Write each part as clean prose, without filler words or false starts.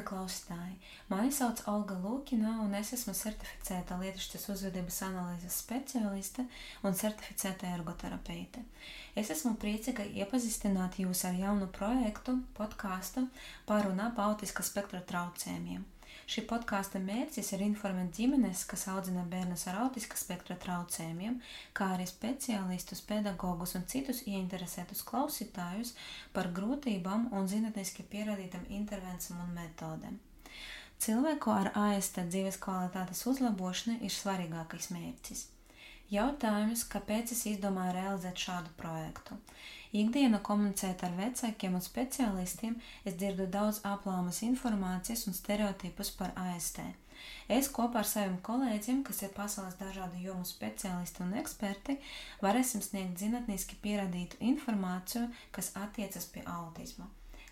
Labi, klausītāji! Mani sauc Olga Lūkina, un es esmu certificēta lietišķas uzvedības analīzes speciāliste un certificēta ergoterapeite. Es esmu priecīga iepazīstināt jūs ar jaunu projektu, podkāstu par un ap autiska spektra traucējumiem. Šī podkāsta mērķis ir informēt ģimenes, kas audzina bērnus ar autiska spektra traucējumiem, kā arī speciālistus, pedagogus un citus ieinteresētus klausītājus par grūtībām un zinātniski pierādītām intervencijām un metodēm. Cilvēku ar AST dzīves kvalitātes uzlabošana ir svarīgākais mērķis. Jautājums, kāpēc es izdomāju realizēt šādu projektu? Ikdienā komunicēt ar vecākiem un speciālistiem, es dzirdu daudz aplāmas informācijas un stereotipus par AST. Es kopā ar saviem kolēģiem, kas ir pasaules dažādu jomu speciālisti un eksperti, varēsim sniegt zinātniski pierādītu informāciju, kas attiecas pie autisma.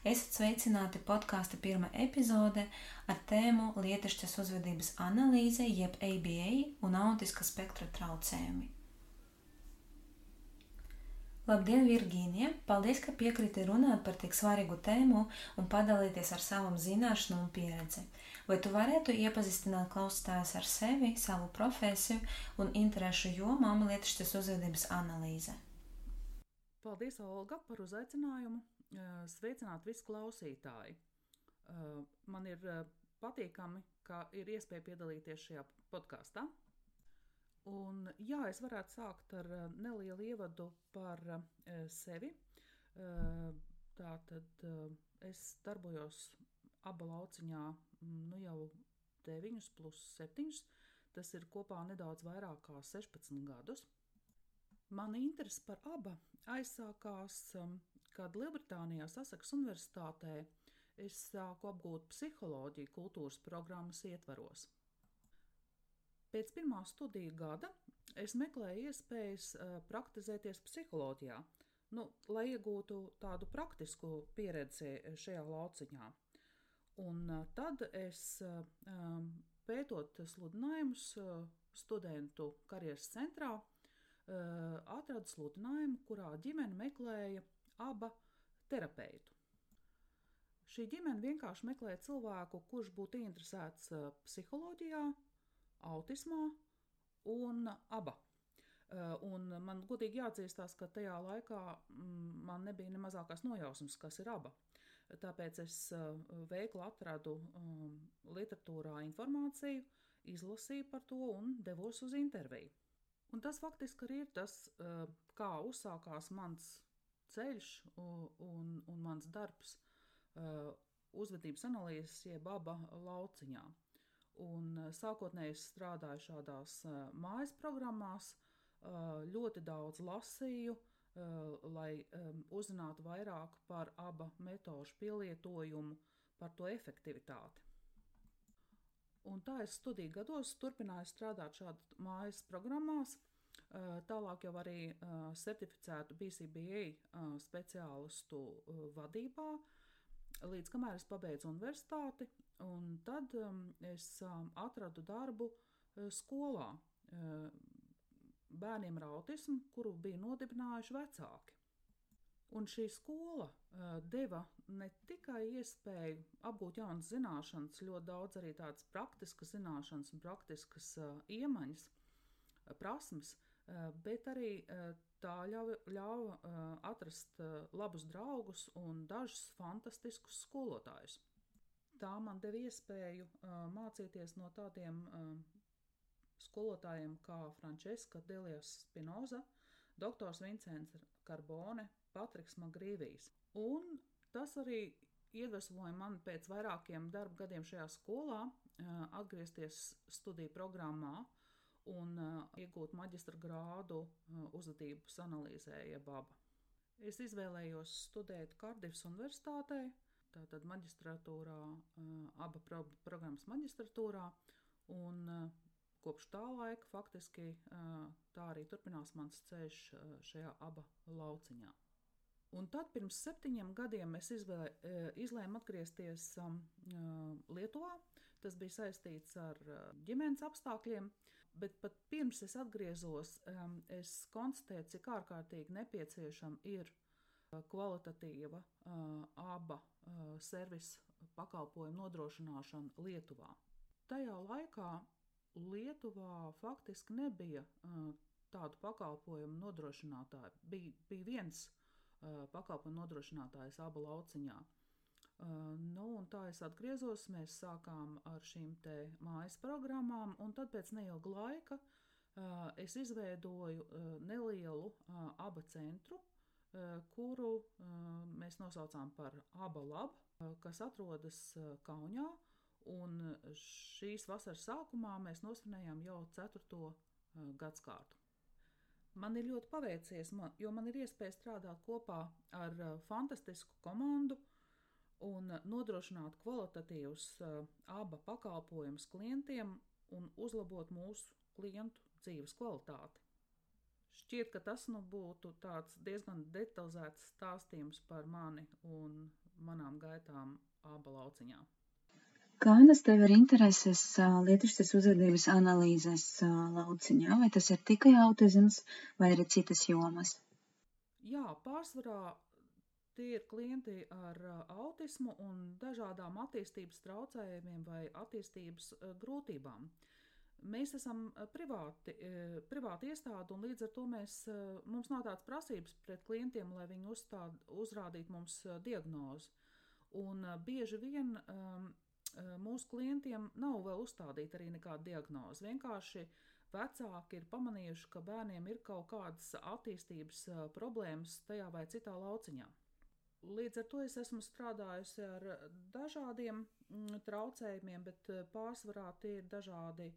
Esat sveicināti podkāsta pirmā epizode ar tēmu lietišķas uzvedības analīze jeb ABA un autiska spektra traucējumi. Labdien, Virgīnija! Paldies, ka piekriti runāt par tik svarīgu tēmu un padalīties ar savam zināšanu un pieredzi. Vai tu varētu iepazīstināt klausītājus ar sevi, savu profesiju un interešu jomām lietišķas uzvedības analīze? Paldies, Olga, par uzaicinājumu. Sveicināt visu klausītāji. Man ir patīkami, ka ir iespēja piedalīties šajā podkāstā. Un jā, es varētu sākt ar nelielu ievadu par sevi. Tātad es darbojos Aba lauciņā jau 9 plus 7. Tas ir kopā nedaudz vairāk kā 16 gadus. Mana interese par Aba aizsākās, kad Lielbritānijā Saseksas Universitātē es sāku apgūt psiholoģiju kultūras programmas ietvaros. Pēc pirmā studiju gada es meklēju iespējas praktizēties psiholoģijā, lai iegūtu tādu praktisku pieredzi šajā lauciņā. Un tad es, pētot sludinājumus studentu karjeras centrā, atradu sludinājumu, kurā ģimene meklēja Aba terapeitu. Šī ģimene vienkārši meklēja cilvēku, kurš būtu interesēts psiholoģijā, autismā un Aba. Un man godīgi jāatzīstās, ka tajā laikā man nebija ne mazākās nojausmas, kas ir Aba. Tāpēc es veikli atradu literatūrā informāciju, izlasīju par to un devos uz interviju. Un tas faktiski arī ir tas, kā uzsākās mans ceļš un mans darbs uzvedības analīzes jeb Aba lauciņā. Un sākotnēji es strādāju šādās mājas programmās, ļoti daudz lasīju, lai uzzinātu vairāk par Aba metožu pielietojumu, par to efektivitāti. Un tā es studiju gados turpināju strādāt šādu mājas programmās, tālāk jau arī certificētu BCBA speciālistu vadībā, līdz kamēr es pabeidzu universitāti, un tad es atradu darbu skolā bērniem ar autismu, kuru bija nodibinājuši vecāki. Un šī skola deva ne tikai iespēju apgūt jaunas zināšanas, ļoti daudz arī tādas praktiskas zināšanas un praktiskas iemaņas, prasmes, bet arī tā ļauj atrast labus draugus un dažus fantastiskus skolotājus. Tā man deva iespēju mācīties no tādiem skolotājiem kā Francesca Delias Spinoza, doktors Vincents Carbone, Patriks Magrīvijs. Un tas arī iedvesmoja mani pēc vairākiem darba gadiem šajā skolā atgriezties studiju programmā un iegūt maģistra grādu uzvedības analīzē jeb Aba. Es izvēlējos studēt Kardifas universitātē, tātad maģistratūrā, Aba programmas maģistratūrā, un kopš tā laika faktiski tā arī turpinās mans ceļš šajā Aba lauciņā. Un tad pirms 7 gadiem es izlēmu atgriezties Lietuvā. Tas bija saistīts ar ģimenes apstākļiem, bet pat pirms es atgriezos, es konstatēju, cik ārkārtīgi nepieciešama ir kvalitatīva aba servisa pakalpojumu nodrošināšana Lietuvā. Tajā laikā Lietuvā faktiski nebija tādu pakalpojumu nodrošinātāju. Bija viens pakalpojumu nodrošinātājs Aba lauciņā. Un tā es atgriezos, mēs sākām ar šīm te mājas programmām, un tad pēc neilga laika es izveidoju nelielu Aba centru, kuru mēs nosaucām par Aba Lab, kas atrodas Kaunijā, un šīs vasaras sākumā mēs nosvinējām jau 4. gadskārtu. Man ir ļoti paveicies, jo man ir iespēja strādāt kopā ar fantastisku komandu un nodrošināt kvalitatīvus Aba pakalpojumus klientiem un uzlabot mūsu klientu dzīves kvalitāti. Šķiet, ka tas būtu tāds diezgan detalizēts stāstījums par mani un manām gaitām Aba lauciņā. Kādas tev ir intereses lietišķas uzvedības analīzes lauciņā? Vai tas ir tikai autisms vai arī citas jomas? Jā, pārsvarā tie ir klienti ar autismu un dažādām attīstības traucējumiem vai attīstības grūtībām. Mēs esam privāti iestāde, un līdz ar to mums nav tādas prasības pret klientiem, lai viņi uzrādītu mums diagnozi. Un bieži vien mūsu klientiem nav vēl uzstādīta arī nekāda diagnoze. Vienkārši vecāki ir pamanījuši, ka bērniem ir kaut kādas attīstības problēmas tajā vai citā lauciņā. Līdz ar to es esmu strādājusi ar dažādiem traucējumiem, bet pārsvarā tie ir dažādi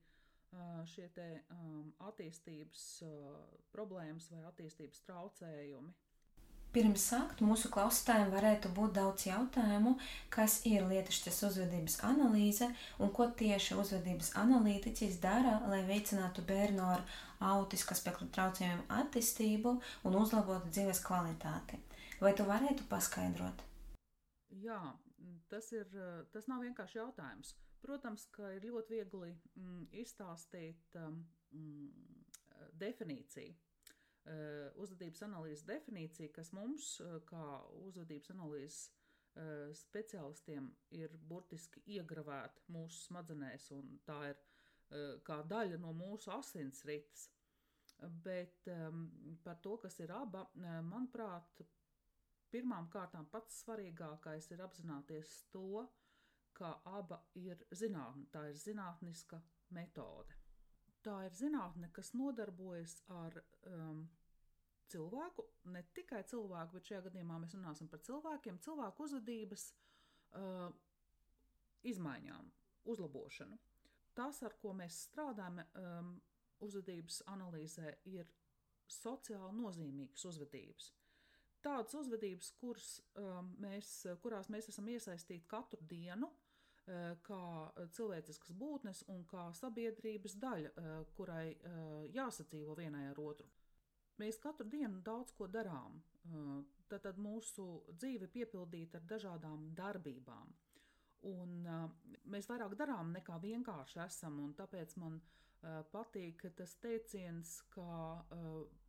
šie te attīstības problēmas vai attīstības traucējumi. Pirms sākt mūsu klausītājiem varētu būt daudz jautājumu, kas ir lietišķas uzvedības analīze un ko tieši uzvedības analītiķis dara, lai veicinātu bērnu ar autiska spektra traucējumu attīstību un uzlabotu dzīves kvalitāti. Vai tu varētu paskaidrot? Jā, tas nav vienkārši jautājums. Protams, ka ir ļoti viegli izstāstīt definīciju. Uzvedības analīzes definīcija, kas mums, kā uzvedības analīzes speciālistiem, ir burtiski iegravēta mūsu smadzenēs, un tā ir kā daļa no mūsu asinsrites. Bet par to, kas ir Aba, manuprāt, pirmām kārtām pats svarīgākais ir apzināties to, ka Aba ir zinātne, tā ir zinātniska metode. Tā ir zinātne, kas nodarbojas ar cilvēku, ne tikai cilvēku, bet šajā gadījumā mēs runāsim par cilvēkiem, cilvēku uzvedības izmaiņām, uzlabošanu. Tas, ar ko mēs strādājam uzvedības analīzē, ir sociāli nozīmīgas uzvedības. Tādas uzvedības, kurās mēs esam iesaistīti katru dienu, kā cilvēciskas būtnes un kā sabiedrības daļa, kurai jāsadzīvo vienai ar otru. Mēs katru dienu daudz ko darām, tad mūsu dzīve piepildīta ar dažādām darbībām. Un mēs vairāk darām nekā vienkārši esam, un tāpēc man patīk tas teiciens, ka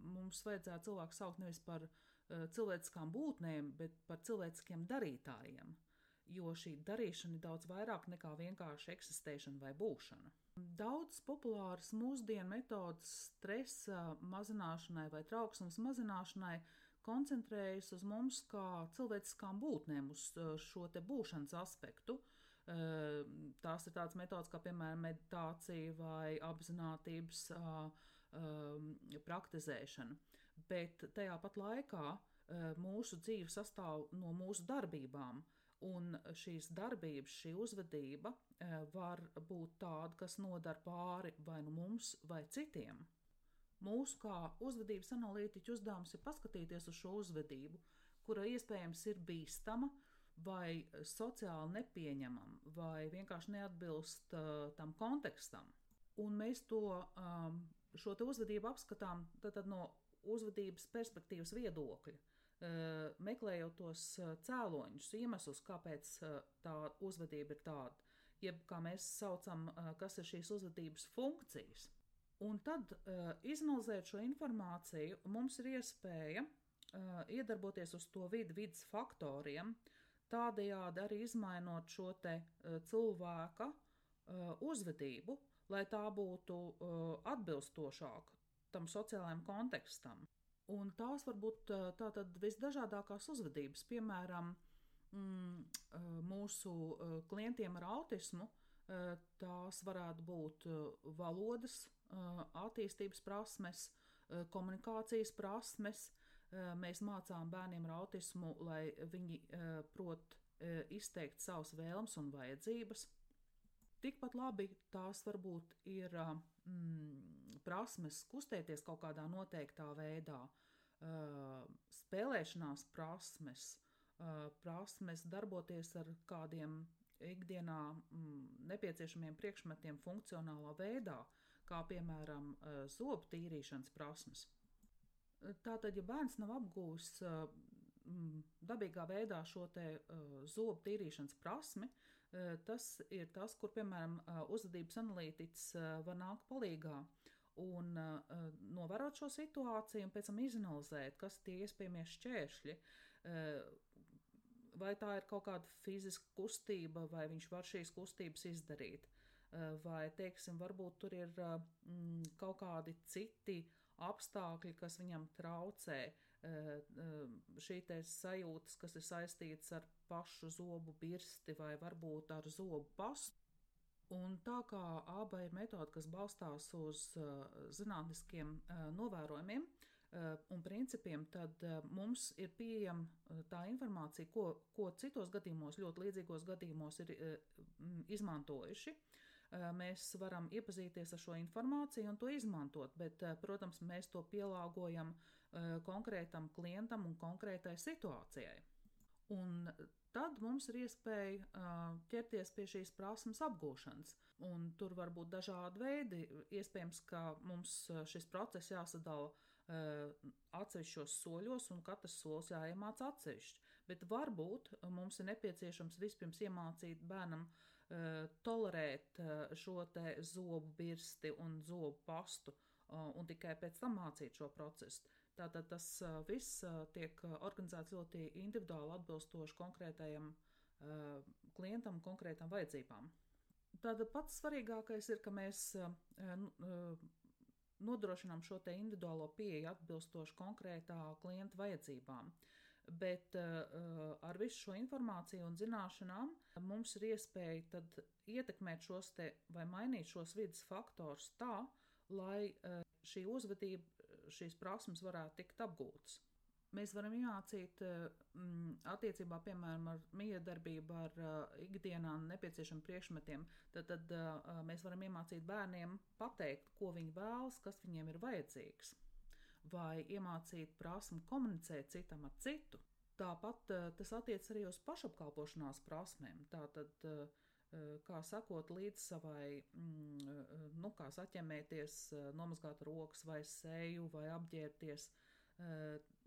mums vajadzētu cilvēku saukt nevis par cilvēciskām būtnēm, bet par cilvēciskiem darītājiem. Jo šī darīšana ir daudz vairāk nekā vienkārši eksistēšana vai būšana. Daudz populāras mūsdienu metodas stresa mazināšanai vai trauksmes mazināšanai koncentrējas uz mums kā cilvēciskām būtnēm, uz šo te būšanas aspektu. Tās ir tādas metodas kā, piemēram, meditācija vai apzinātības praktizēšana. Bet tajā pat laikā mūsu dzīve sastāv no mūsu darbībām. Un šīs darbības, šī uzvedība var būt tāda, kas nodara pāri vai nu mums, vai citiem. Mūsu kā uzvedības analītiķu uzdevums ir paskatīties uz šo uzvedību, kura iespējams ir bīstama vai sociāli nepieņemama, vai vienkārši neatbilst tam kontekstam. Un mēs šo te uzvedību apskatām tad no uzvedības perspektīvas viedokļa. Meklējot tos cēloņus, iemeslus, kāpēc tā uzvedība ir tāda, jeb kā mēs saucam, kas ir šīs uzvedības funkcijas. Un tad, izanalizēt šo informāciju, mums ir iespēja iedarboties uz to vidas faktoriem, tādējādi arī izmainot šo te cilvēka uzvedību, lai tā būtu atbilstošāka tam sociālajam kontekstam. Un tās var būt tātad visdažādākās uzvedības, piemēram, mūsu klientiem ar autismu, tās varētu būt valodas attīstības prasmes, komunikācijas prasmes. Mēs mācām bērniem ar autismu, lai viņi prot izteikt savas vēlmes un vajadzības. Tikpat labi tās varbūt ir prasmes kustēties kaut kādā noteiktā veidā, spēlēšanās prasmes, prasmes darboties ar kādiem ikdienā nepieciešamiem priekšmetiem funkcionālā veidā, kā piemēram zobu tīrīšanas prasmes. Tātad, ja bērns nav apgūs dabīgā veidā šo te zobu tīrīšanas prasmi, tas ir tas, kur, piemēram, uzvedības analītiķis var nākt palīgā un novērot šo situāciju un pēc tam izanalizēt, kas tie iespējamie šķēršļi, vai tā ir kaut kāda fiziska kustība, vai viņš var šīs kustības izdarīt, vai, teiksim, varbūt tur ir kaut kādi citi apstākļi, kas viņam traucē, šī te sajūtas, kas ir saistītas ar pašu zobu birsti vai varbūt ar zobu pastu. Un tā kā ABA ir metode, kas balstās uz zinātniskiem novērojumiem un principiem, tad mums ir pieejama tā informācija, ko citos gadījumos, ļoti līdzīgos gadījumos ir izmantojuši. Mēs varam iepazīties ar šo informāciju un to izmantot, bet, protams, mēs to pielāgojam konkrētam klientam un konkrētai situācijai. Un tad mums ir iespēja ķerties pie šīs prasmes apgūšanas. Un tur var būt dažādi veidi. Iespējams, ka mums šis process jāsadala atsevišķos soļos un katrs solis jāiemāc atsevišķi. Bet varbūt mums ir nepieciešams vispirms iemācīt bērnam tolerēt šo te zobu birsti un zobu pastu un tikai pēc tam mācīt šo procesu. Tātad tas viss tiek organizēts ļoti individuāli atbilstoši konkrētajam klientam, konkrētām vajadzībām. Tātad pats svarīgākais ir, ka mēs nodrošinām šo te individuālo pieeju atbilstoši konkrētā klienta vajadzībām. Bet ar visu šo informāciju un zināšanām mums ir iespēja tad ietekmēt šos te vai mainīt šos vidas faktors tā, lai šī uzvedība, šīs prasmes varētu tikt apgūtas. Mēs varam iemācīt attiecībā, piemēram, ar miedarbību, ar ikdienā nepieciešamiem priekšmetiem, tad mēs varam iemācīt bērniem pateikt, ko viņi vēlas, kas viņiem ir vajadzīgs. Vai iemācīt prasmi komunicēt citam ar citu. Tāpat tas attiec arī uz pašapkalpošanās prasmēm. Tātad, kā sakot līdz savai, kā saķemēties, nomazgāt rokas vai seju vai apģērbties.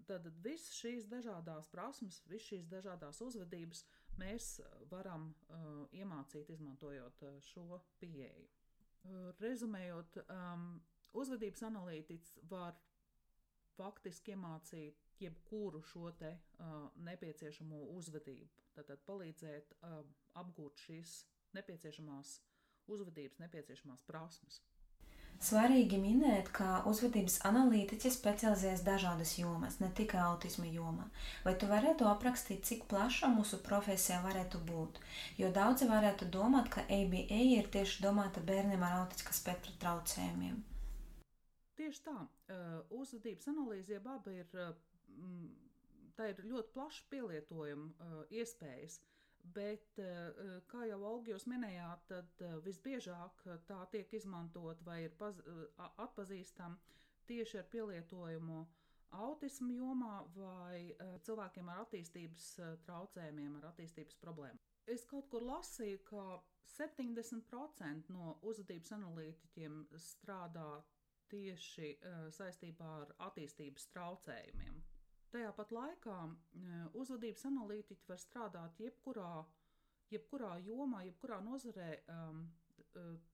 Tad visas šīs dažādās prasmes, visas šīs dažādās uzvedības mēs varam iemācīt, izmantojot šo pieeju. Rezumējot, uzvedības analītiķis var faktiski iemācīt jebkuru šo te nepieciešamo uzvedību, tātad palīdzēt apgūt šīs nepieciešamās uzvedības, nepieciešamās prasmes. Svarīgi minēt, ka uzvedības analītiķis specializējas dažādas jomas, ne tikai autisma jomā. Vai tu varētu aprakstīt, cik plaša mūsu profesija varētu būt? Jo daudzi varētu domāt, ka ABA ir tieši domāta bērniem ar autistiskā spektra traucējumiem. Tieši tā. Uzvedības analīze jeb ABA ir ļoti plaša pielietojuma iespējas, bet, kā jau Olga jūs minējāt, tad visbiežāk tā tiek izmantot vai ir atpazīstama tieši ar pielietojumu autismu jomā vai cilvēkiem ar attīstības traucējumiem, ar attīstības problēmām. Es kaut kur lasīju, ka 70% no uzvedības analītiķiem strādā tieši saistībā ar attīstības traucējumiem. Tajā pat laikā uzvedības analītiķi var strādāt jebkurā jomā, jebkurā nozarē,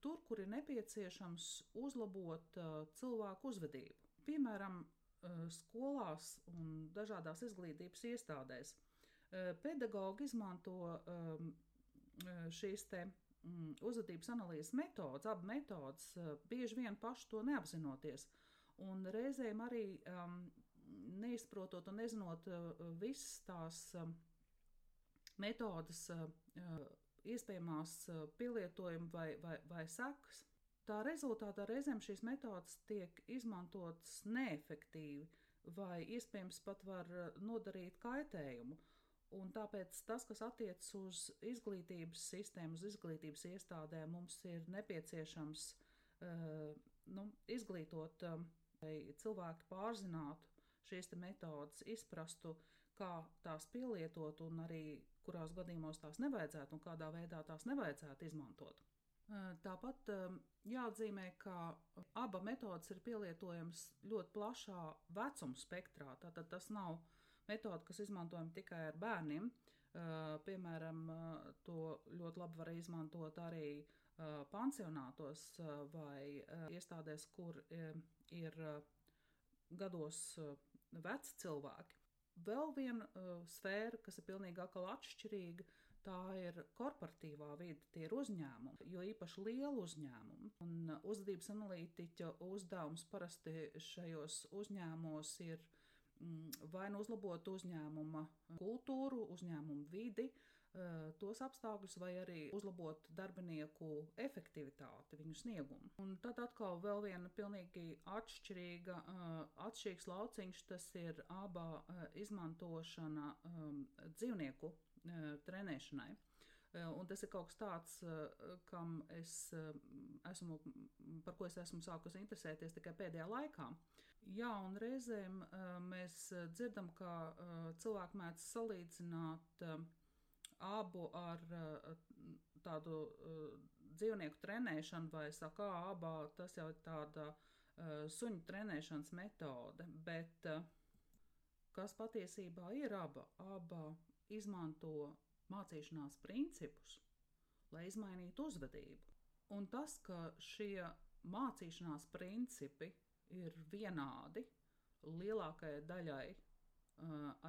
tur, kur ir nepieciešams uzlabot cilvēku uzvedību. Piemēram, skolās un dažādās izglītības iestādēs. Pedagogi izmanto šīs te uzvedības analīzes metodas, abi metodas, bieži vien paši to neapzinoties. Un reizēm arī neizprotot un nezinot visas tās metodas iespējamās pielietojuma vai sekas. Tā rezultātā reizēm šīs metodas tiek izmantotas neefektīvi vai iespējams pat var nodarīt kaitējumu. Un tāpēc tas, kas attiecas uz izglītības sistēmu, uz izglītības iestādēm, mums ir nepieciešams izglītot, lai cilvēki pārzinātu šīs metodas, izprastu, kā tās pielietot un arī kurās gadījumos tās nevajadzētu un kādā veidā tās nevajadzētu izmantot. Tāpat jāatzīmē, ka abas metodas ir pielietojamas ļoti plašā vecuma spektrā. Tātad tas nav metode, kas izmantojama tikai ar bērniem. Piemēram, to ļoti labi var izmantot arī pansionātos vai iestādēs, kur ir gados veci cilvēki. Vēl viena sfēra, kas ir pilnīgi atkal atšķirīga, tā ir korporatīvā vide, tie ir uzņēmumi, jo īpaši lielu uzņēmumu. Un uzvedības analītiķa uzdevums parasti šajos uzņēmumos ir vai nu uzlabot uzņēmuma kultūru, uzņēmuma vidi, tos apstākļus, vai arī uzlabot darbinieku efektivitāti, viņu sniegumu. Un tad atkal vēl viena pilnīgi atšķirīgs lauciņš, tas ir aba izmantošana dzīvnieku trenēšanai. Un tas ir kaut kas tāds, par ko es esmu sākusi interesēties tikai pēdējā laikā. Jā, un reizēm mēs dzirdam, ka cilvēki mēdz salīdzināt abu ar tādu dzīvnieku trenēšanu, vai saka, abā tas jau ir tāda suņu trenēšanas metode, bet kas patiesībā ir aba izmanto mācīšanās principus, lai izmainītu uzvedību. Un tas, ka šie mācīšanās principi ir vienādi lielākajai daļai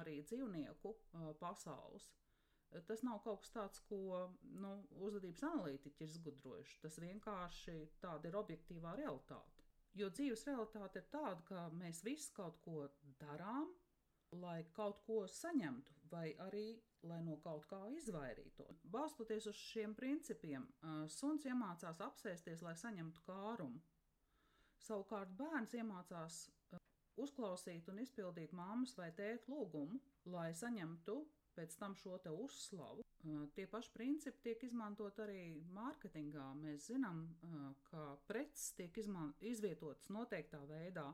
arī dzīvnieku pasaules, tas nav kaut kas tāds, ko uzvedības analītiķi ir izgudrojuši. Tas vienkārši tāda ir objektīvā realitāte. Jo dzīves realitāte ir tāda, ka mēs visi kaut ko darām, lai kaut ko saņemtu, vai arī, lai no kaut kā izvairītos. Balstoties uz šiem principiem, suns iemācās apsēsties, lai saņemtu kārumu. Savukārt bērns iemācās uzklausīt un izpildīt mammas vai tēta lūgumu, lai saņemtu pēc tam šo te uzslavu. Tie paši principi tiek izmantot arī mārketingā. Mēs zinām, ka preces tiek izvietotas noteiktā veidā,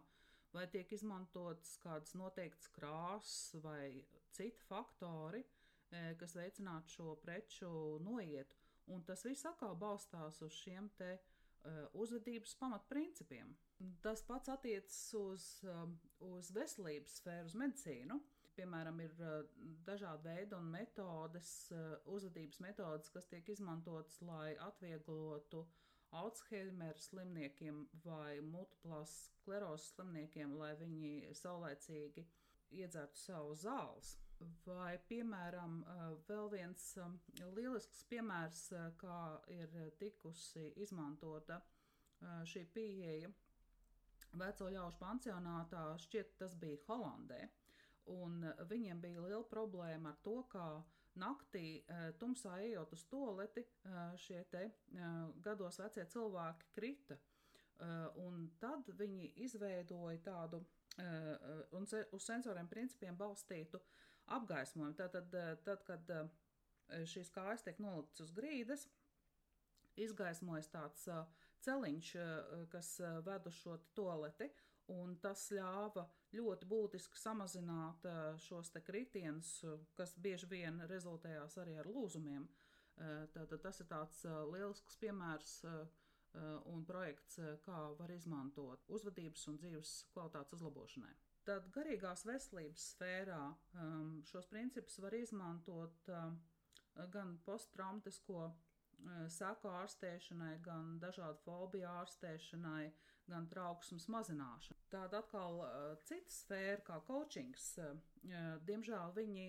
vai tiek izmantotas kādas noteiktas krāsas vai citi faktori, kas veicinātu šo preču noietu. Un tas viss atkal balstās uz šiem te uzvedības pamatprincipiem. Tas pats attiecas uz veselības sfēru, uz medicīnu. Piemēram, ir dažādi veidi un metodes, uzvedības metodes, kas tiek izmantotas, lai atvieglotu Alzheimera slimniekiem vai multiplās sklerozes slimniekiem, lai viņi saulēcīgi iedzertu savu zāles. Vai, piemēram, vēl viens lielisks piemērs, kā ir tikusi izmantota šī pieeja veco ļaužu pansionātā, šķiet tas bija Holandē. Un viņiem bija liela problēma ar to, ka naktī tumsā ejot uz tualeti, šie te gados vecie cilvēki krita. Un tad viņi izveidoja tādu uz sensoriem principiem balstītu apgaismojumu. Tad, kad šīs kājas tiek noliktas uz grīdas, izgaismojas tāds celiņš, kas ved uz šo tualeti, un tas ļāva ļoti būtiski samazināt šos te kritienus, kas bieži vien rezultējās arī ar lūzumiem. Tātad tas ir tāds lielisks piemērs un projekts, kā var izmantot uzvedības un dzīves kvalitātes uzlabošanai. Tad garīgās veselības sfērā šos principus var izmantot gan posttraumatisko seku ārstēšanai, gan dažādu fobiju ārstēšanai, gan trauksmes mazināšanai. Tāda atkal cita sfēra kā coachings. Diemžēl viņi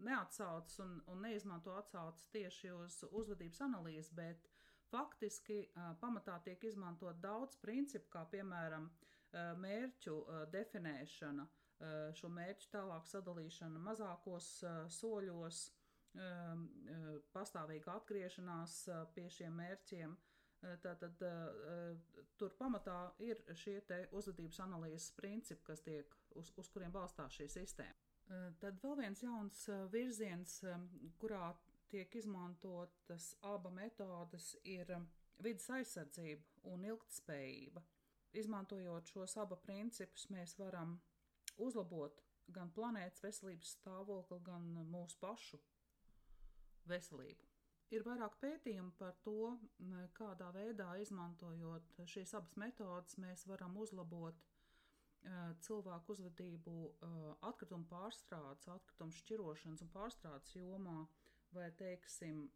neatsaucas un neizmanto atsaucas tieši uz uzvedības analīzi, bet faktiski pamatā tiek izmantot daudz principu, kā piemēram mērķu definēšana, šo mērķu tālāk sadalīšana mazākos soļos, pastāvīga atgriešanās pie šiem mērķiem. Tātad tur pamatā ir šie te uzvedības analīzes principi, kas tiek, uz kuriem balstās šī sistēma. Tad vēl viens jauns virziens, kurā tiek izmantotas aba metodes, ir vides aizsardzība un ilgtspējība. Izmantojot šos aba principus, mēs varam uzlabot gan planētas veselības stāvokli, gan mūsu pašu veselību. Ir vairāk pētījumu par to, kādā veidā izmantojot šīs abas metodes, mēs varam uzlabot cilvēku uzvedību atkritumu pārstrādes, atkritumu šķirošanas un pārstrādes jomā, vai, teiksim,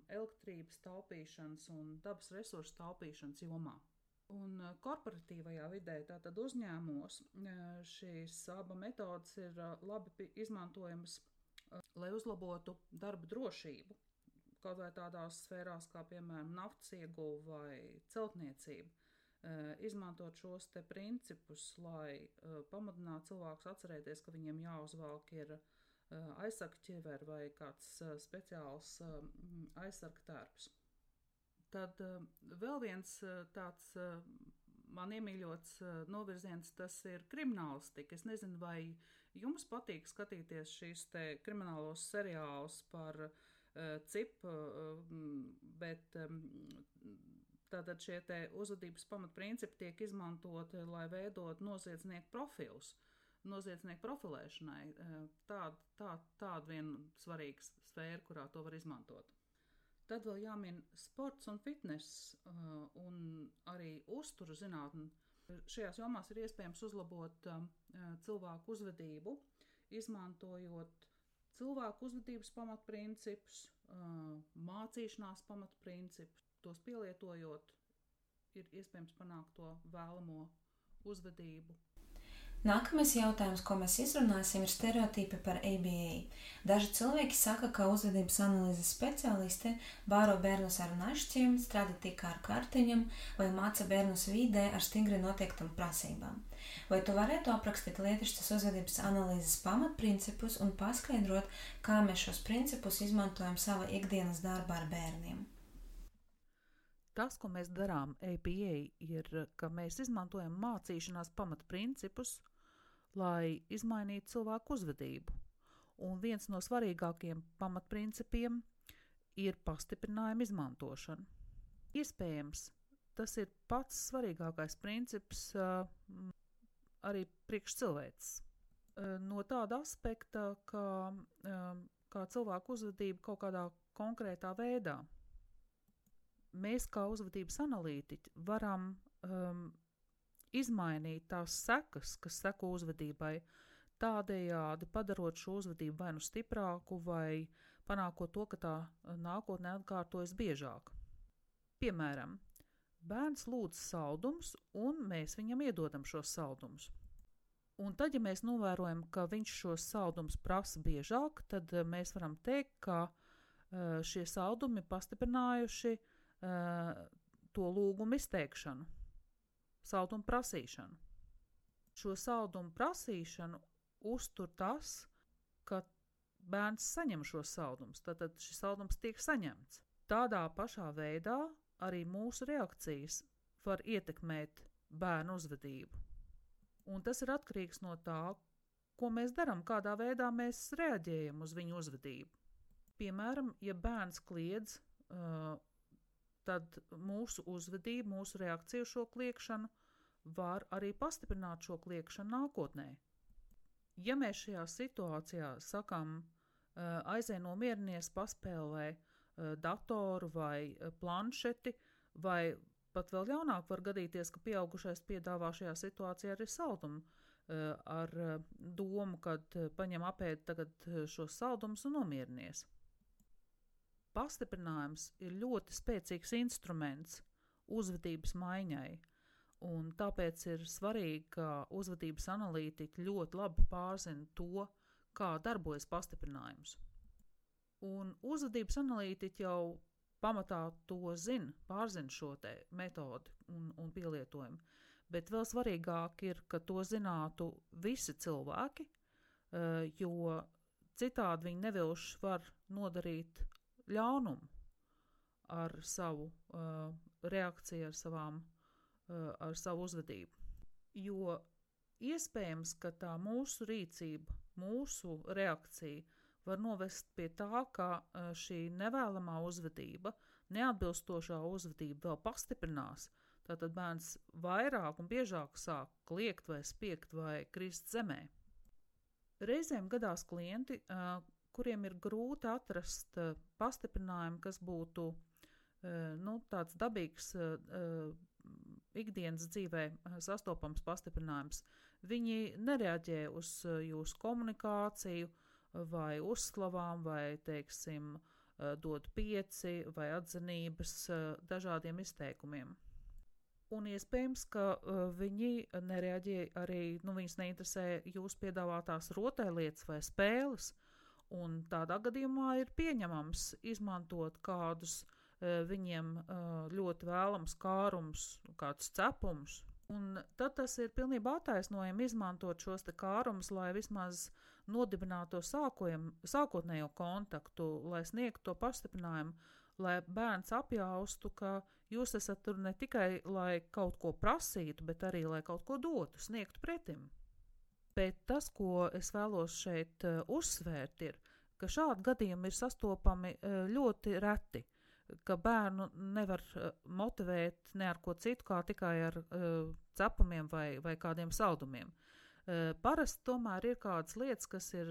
elektrības taupīšanas un dabas resursu taupīšanas jomā. Un korporatīvajā vidē, tātad uzņēmumos, šīs aba metodes ir labi izmantojamas, lai uzlabotu darba drošību. Kaut vai tādās sfērās kā, piemēram, naftas ieguve vai celtniecība. Izmantot šos te principus, lai pamudinātu cilvēkus atcerēties, ka viņiem jāuzvelk ir aizsarga ķiveri vai kāds speciāls aizsarga tērps. Tad vēl viens tāds man iemīļots novirziens, tas ir kriminālistika. Es nezinu, vai jums patīk skatīties šīs te kriminālos seriālus par cipu, bet tātad šie te uzvedības pamatprincipi tiek izmantoti, lai veidot noziedznieku profilus, noziedznieku profilēšanai. Tāda viena svarīga sfēra, kurā to var izmantot. Tad vēl jāmin sports un fitness un arī uzturu zinātne. Šajās jomās ir iespējams uzlabot cilvēku uzvedību, izmantojot cilvēku uzvedības pamatprincipus, mācīšanās pamatprincipus. Tos pielietojot, ir iespējams panākt to vēlamo uzvedību. Nākamais jautājums, ko mēs izrunāsim, ir stereotipi par ABA. Daži cilvēki saka, ka uzvedības analīzes speciāliste bāro bērnus ar našķiem, strādā tikai ar kartiņam vai māca bērnus vidē ar stingri noteiktām prasībām. Vai tu varētu aprakstīt lietišķas uzvedības analīzes pamatprincipus un paskaidrot, kā mēs šos principus izmantojam savā ikdienas darbā ar bērniem? Tas, ko mēs darām ABA, ir, ka mēs izmantojam mācīšanās pamatprincipus, lai izmainītu cilvēku uzvedību. Un viens no svarīgākajiem pamatprincipiem ir pastiprinājuma izmantošana. Iespējams, tas ir pats svarīgākais princips arī priekš cilvēces. No tāda aspekta, kā cilvēku uzvedība kaut kādā konkrētā veidā. Mēs kā uzvedības analītiķi varam izmainīt tās sekas, kas seko uzvedībai, tādējādi padarot šo uzvedību vai nu stiprāku, vai panākot to, ka tā nākotnē atkārtojas biežāk. Piemēram, bērns lūdz saldumus, un mēs viņam iedodam šos saldumus. Un tad, ja mēs novērojam, ka viņš šos saldumus prasa biežāk, tad mēs varam teikt, ka šie saldumi pastiprinājuši to lūgumu izteikšanu, saldumu prasīšanu. Šo saldumu prasīšanu uztur tas, ka bērns saņem šos saldumus, tātad šis saldums tiek saņemts. Tādā pašā veidā arī mūsu reakcijas var ietekmēt bērnu uzvedību. Un tas ir atkarīgs no tā, ko mēs darām, kādā veidā mēs reaģējam uz viņu uzvedību. Piemēram, ja bērns kliedz, tad mūsu uzvedība, mūsu reakcija uz šo kliegšanu var arī pastiprināt šo kliegšanu nākotnē. Ja mēs šajā situācijā sakam, aizej nomierinies, paspēlē datoru vai planšeti, vai pat vēl jaunāk var gadīties, ka pieaugušais piedāvā šajā situācijā arī saldumu ar domu, kad paņem apēd tagad šos saldumus un nomierinies. pastiprinājums ir ļoti spēcīgs instruments uzvedības maiņai, un tāpēc ir svarīgi, ka uzvedības analītiķi ļoti labi pārzina to, kā darbojas pastiprinājums. Un uzvedības analītiķi jau pamatā to pārzina šo te metodi un pielietojumu, bet vēl svarīgāk ir, ka to zinātu visi cilvēki, jo citādi viņi nevilši var nodarīt ļaunumu ar savu reakciju, ar savu uzvedību. Jo iespējams, ka tā mūsu rīcība, mūsu reakcija var novest pie tā, ka šī nevēlamā uzvedība, neatbilstošā uzvedība vēl pastiprinās. Tātad bērns vairāk un biežāk sāk kliegt vai spiegt vai krist zemē. Reizēm gadās klienti, kuriem ir grūti atrast pastiprinājumu, kas būtu tāds dabīgs ikdienas dzīvē sastopams pastiprinājums. Viņi nereaģē uz jūsu komunikāciju vai uzslavām vai, teiksim, dod 5 vai atzinības dažādiem izteikumiem. Un iespējams, ka viņi nereaģē arī, viņus neinteresē jūsu piedāvātās rotaļlietas vai spēles, un tādā gadījumā ir pieņemams izmantot kādus viņiem ļoti vēlams kārums, kādus cepumus. Un tad tas ir pilnībā attaisnojami izmantot šos te kārumus, lai vismaz nodibinātu sākotnējo kontaktu, lai sniegtu to pastiprinājumu, lai bērns apjaustu, ka jūs esat tur ne tikai, lai kaut ko prasītu, bet arī, lai kaut ko dotu, sniegtu pretim. Bet tas, ko es vēlos šeit uzsvērt, ir, ka šādi gadījumi ir sastopami ļoti reti, ka bērnu nevar motivēt ne ar ko citu, kā tikai ar cepumiem vai kādiem saldumiem. Parasti tomēr ir kādas lietas, kas ir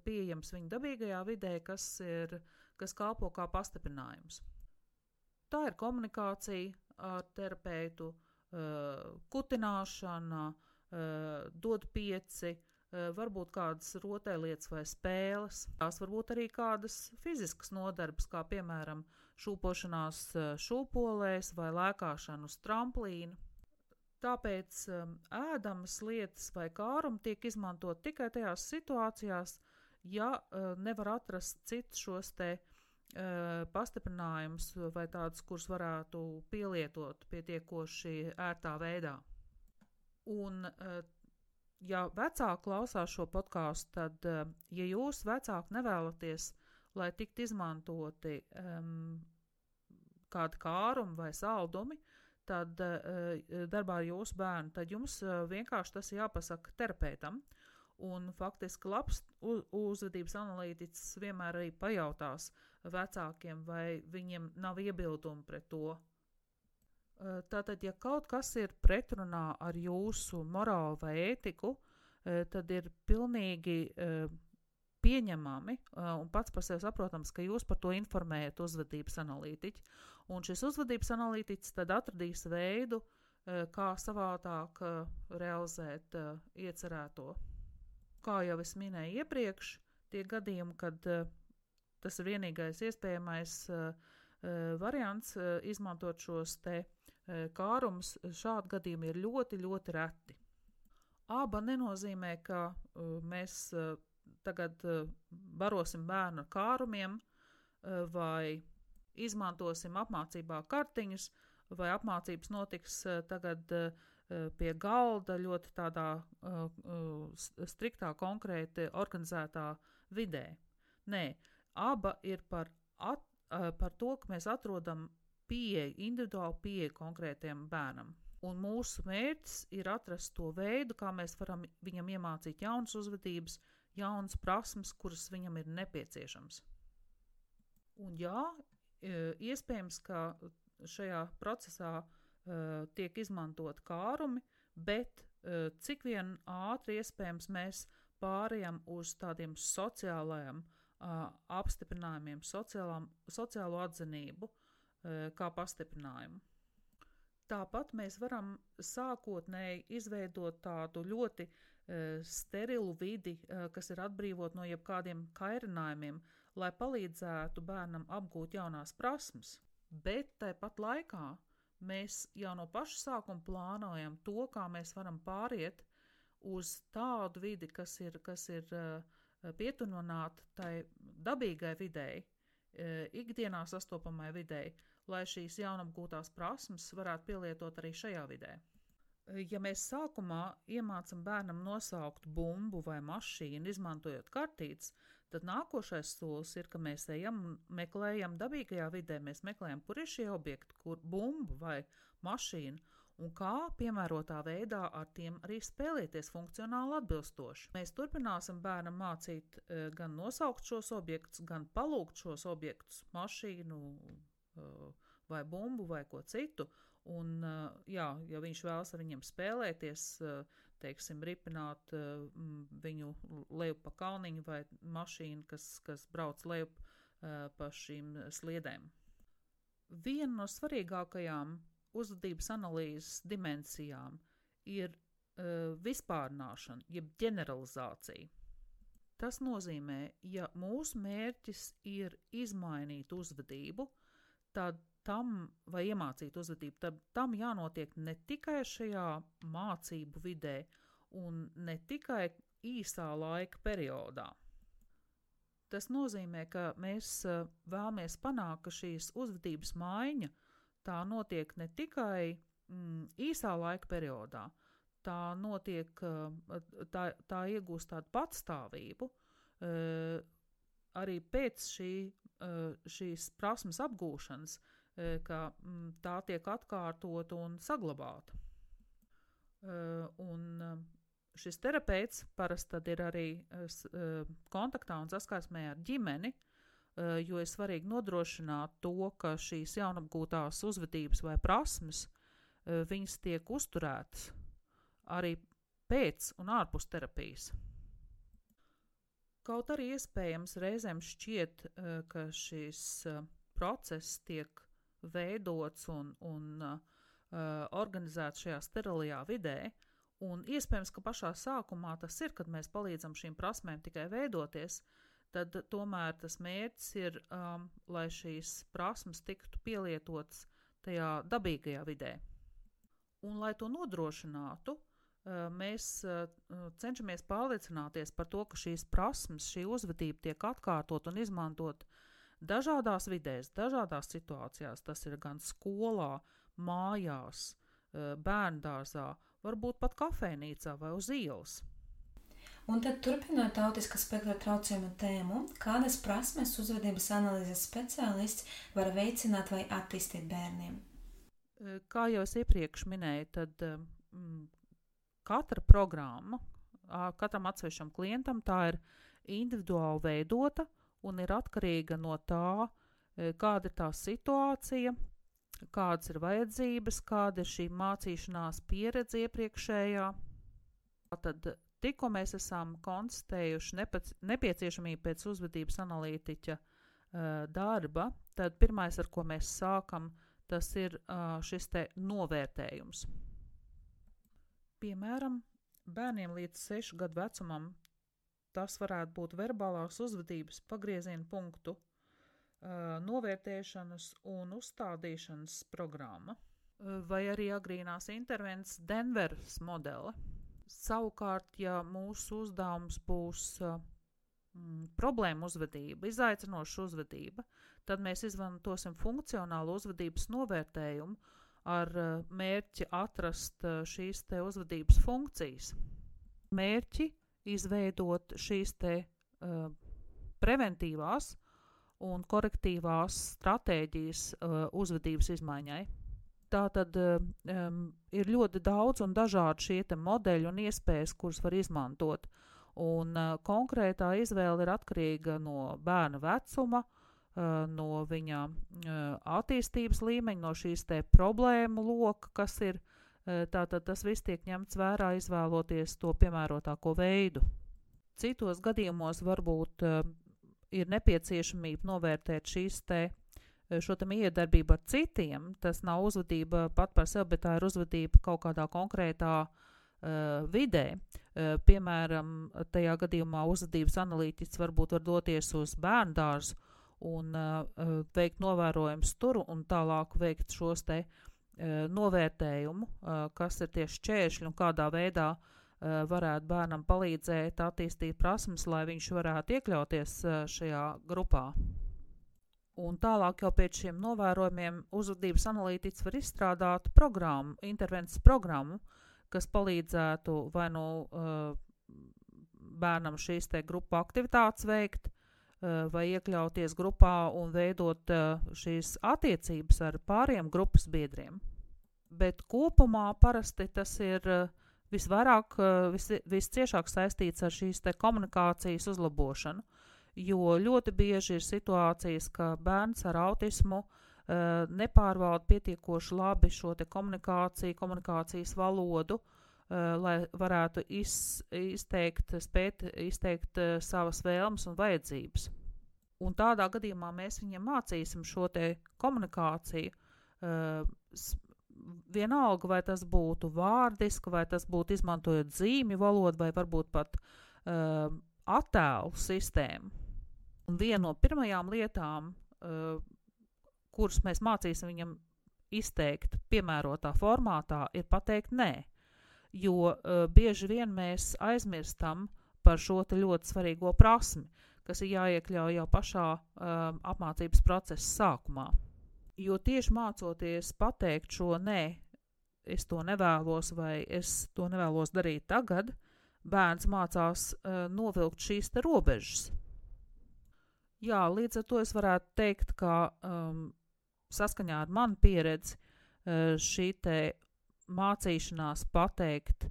pieejams viņa dabīgajā vidē, kas kalpo kā pastiprinājums. Tā ir komunikācija ar terapeitu, kutināšana, dod 5, varbūt kādas rotaļlietas vai spēles. Tās varbūt arī kādas fiziskas nodarbes, kā piemēram šūpošanās šūpolēs vai lēkāšana uz tramplīna. Tāpēc ēdamas lietas vai kārumi tiek izmantot tikai tajās situācijās, ja nevar atrast citus šos te pastiprinājumus vai tādus, kurus varētu pielietot pietiekoši ērtā veidā. Un, ja vecāki klausās šo podcastu, tad, ja jūs vecāki nevēlaties, lai tikt izmantoti kādi kārumi vai saldumi, tad darbā ar jūsu bērnu, tad jums vienkārši tas jāpasaka terapeitam. Un faktiski labs uzvedības analītiķis vienmēr arī pajautās vecākiem, vai viņiem nav iebildumi pret to. Tātad, ja kaut kas ir pretrunā ar jūsu morālu vai ētiku, tad ir pilnīgi pieņemami un pats par sevi saprotams, ka jūs par to informējat uzvedības analītiķi. Un šis uzvedības analītiķis tad atradīs veidu, kā savādāk realizēt iecerēto. Kā jau es minēju iepriekš, tie gadījumi, kad tas ir vienīgais iespējamais variants izmantot šos te kārumus, šādi gadījumi ir ļoti, ļoti reti. Aba nenozīmē, ka mēs tagad barosim bērnu ar kārumiem vai izmantosim apmācībā kartiņus vai apmācības notiks tagad pie galda ļoti tādā striktā, konkrēti organizētā vidē. Nē, aba ir par to, ka mēs atrodam individuālu pieeju konkrētiem bērnam. Un mūsu mērķis ir atrast to veidu, kā mēs varam viņam iemācīt jaunas uzvedības, jaunas prasmes, kuras viņam ir nepieciešams. Un jā, iespējams, ka šajā procesā tiek izmantot kārumi, bet cik vien ātri iespējams mēs pārējām uz tādiem sociālajiem apstiprinājumiem, sociālo atzinību kā pastiprinājumu. Tāpat mēs varam sākotnēji izveidot tādu ļoti sterilu vidi, kas ir atbrīvot no jebkādiem kairinājumiem, lai palīdzētu bērnam apgūt jaunās prasmes, bet tāpat laikā mēs jau no paša sākuma plānojam to, kā mēs varam pāriet uz tādu vidi, kas ir pietuvināta tai dabīgai videi, ikdienā sastopamai videi, lai šīs jaunapgūtās prasmes varētu pielietot arī šajā vidē. Ja mēs sākumā iemācam bērnam nosaukt bumbu vai mašīnu, izmantojot kartītes, tad nākošais solis ir, ka mēs ejam un meklējam dabīgajā vidē, mēs meklējam, kur ir šie objekti, kur bumba vai mašīna, un kā piemērotā veidā ar tiem arī spēlēties funkcionāli atbilstoši. Mēs turpināsim bērnam mācīt gan nosaukt šos objektus, gan palūgt šos objektus, mašīnu vai bumbu vai ko citu, un, ja viņš vēlas ar viņiem spēlēties, teiksim, ripināt viņu lejup pa kalniņu vai mašīnu, kas brauc lejup pa šīm sliedēm. Viena no svarīgākajām uzvedības analīzes dimensijām ir vispārnāšana, jeb ģeneralizācija. Tas nozīmē, ja mūsu mērķis ir izmainīt uzvedību, tad vai iemācīt uzvedību, tad tam jānotiek ne tikai šajā mācību vidē un ne tikai īsā laika periodā. Tas nozīmē, ka mēs vēlamies panākt, ka šīs uzvedības maiņa tā notiek ne tikai īsā laika periodā, tā notiek, tā iegūst tādu patstāvību arī pēc šīs prasmes apgūšanas, ka tā tiek atkārtota un saglabāta. Un šis terapeits parasti tad ir arī kontaktā un saskarsmē ar ģimeni, jo ir svarīgi nodrošināt to, ka šīs jaunapgūtās uzvedības vai prasmes, viņas tiek uzturētas arī pēc un ārpus terapijas. Kaut arī iespējams reizēm šķiet, ka šis process tiek veidots un organizēts šajā sterilajā vidē, un iespējams, ka pašā sākumā tas ir, kad mēs palīdzam šīm prasmēm tikai veidoties, tad tomēr tas mērķis ir, lai šīs prasmes tiktu pielietotas tajā dabīgajā vidē. Un, lai to nodrošinātu, mēs cenšamies pārliecināties par to, ka šīs prasmes, šī uzvedība tiek atkārtot un izmantot dažādās vidēs, dažādās situācijās. Tas ir gan skolā, mājās, bērndārzā, varbūt pat kafejnīcā vai uz ielas. Un tad turpinot autiska spektra traucējumu tēmu, kādas prasmes uzvedības analīzes speciālists var veicināt vai attīstīt bērniem? Kā jau es iepriekš minēju, tad katra programma, katram atsevišķam klientam tā ir individuāli veidota un ir atkarīga no tā, kāda ir tā situācija, kādas ir vajadzības, kāda ir šī mācīšanās pieredze iepriekšējā. Tad tikko mēs esam konstatējuši nepieciešamību pēc uzvedības analītiķa darba, tad pirmais, ar ko mēs sākam, tas ir šis te novērtējums. Piemēram, bērniem līdz 6 gadu vecumam tas varētu būt verbālās uzvedības pagrieziena punktu novērtēšanas un uzstādīšanas programma, vai arī agrīnās intervences Denveras modele. Savukārt, ja mūsu uzdevums būs problēma uzvedība, izaicinoša uzvedība, tad mēs izmantosim funkcionālu uzvedības novērtējumu ar mērķi atrast šīs te uzvedības funkcijas. Mērķi izveidot šīs te preventīvās un korektīvās stratēģijas uzvedības izmaiņai. Tātad ir ļoti daudz un dažādi šie te modeļi un iespējas, kuras var izmantot. Un konkrētā izvēle ir atkarīga no bērna vecuma, no viņa attīstības līmeņa, no šīs te problēmu loka, kas ir. Tātad tas viss tiek ņemts vērā, izvēloties to piemērotāko veidu. Citos gadījumos varbūt ir nepieciešamība novērtēt šo te miedarbību ar citiem. Tas nav uzvedība pat par sevi, bet tā ir uzvedība kaut kādā konkrētā vidē. Piemēram, tajā gadījumā uzvedības analītiķis varbūt var doties uz bērndārzu un veikt novērojumus tur un tālāk veikt šos te novērtējumu, kas ir tieši šķēršļi un kādā veidā varētu bērnam palīdzēt attīstīt prasmes, lai viņš varētu iekļauties šajā grupā. Un tālāk jau pēc šiem novērojumiem uzvedības analītiķis var izstrādāt programmu, intervences programmu, kas palīdzētu vai nu bērnam šīs te grupu aktivitātes veikt, vai iekļauties grupā un veidot šīs attiecības ar pāriem grupas biedriem. Bet kopumā parasti tas ir visvairāk, visciešāk saistīts ar šīs te komunikācijas uzlabošanu, jo ļoti bieži ir situācijas, ka bērns ar autismu nepārvalda pietiekoši labi šo te komunikāciju, komunikācijas valodu, lai varētu spēt izteikt savas vēlmes un vajadzības. Un tādā gadījumā mēs viņam mācīsim šo te komunikāciju, vienalga, vai tas būtu vārdiski, vai tas būtu izmantojot zīmju valodu, vai varbūt pat attēlu sistēmu. Un viena no pirmajām lietām, kuras mēs mācīsim viņam izteikt piemērotā formātā, ir pateikt nē. Jo bieži vien mēs aizmirstam par šo te ļoti svarīgo prasmi, kas ir jāiekļauj jau pašā apmācības procesa sākumā. Jo tieši mācoties pateikt šo nē, es to nevēlos vai es to nevēlos darīt tagad, bērns mācās novilkt šīs te robežas. Jā, līdz ar to es varētu teikt, ka saskaņā ar manu pieredzi šī te mācīšanās pateikt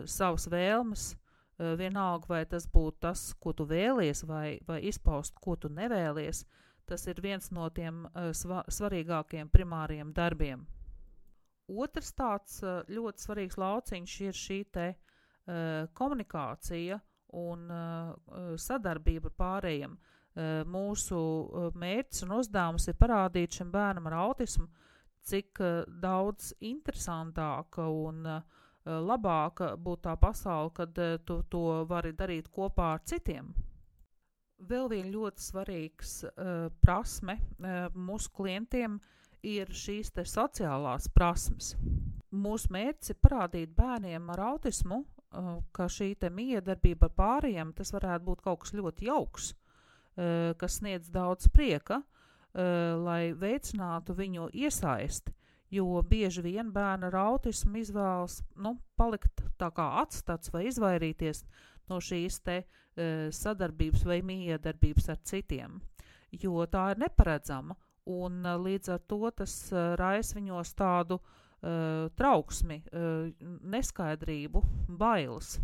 savas vēlmes, vienalga vai tas būtu tas, ko tu vēlies, vai izpaust, ko tu nevēlies, tas ir viens no tiem svarīgākiem primāriem darbiem. Otrs tāds ļoti svarīgs lauciņš ir šī te komunikācija un sadarbība ar pārējiem. Mūsu mērķis un uzdevums ir parādīt šim bērnam ar autismu, cik daudz interesantāka un labāka būtu tā pasaule, kad tu to vari darīt kopā ar citiem. Vēl viena ļoti svarīgs prasme mūsu klientiem ir šīs te sociālās prasmes. Mūsu mērķis ir parādīt bērniem ar autismu, ka šī te miedarbība ar pārējiem, tas varētu būt kaut kas ļoti jauks, kas sniedz daudz prieka, lai veicinātu viņu iesaisti, jo bieži vien bērni ar autismu izvēlas palikt tā kā atstats vai izvairīties no šīs te sadarbības vai miedarbības ar citiem, jo tā ir neparedzama un līdz ar to tas raisa viņos tādu trauksmi, neskaidrību, bailes.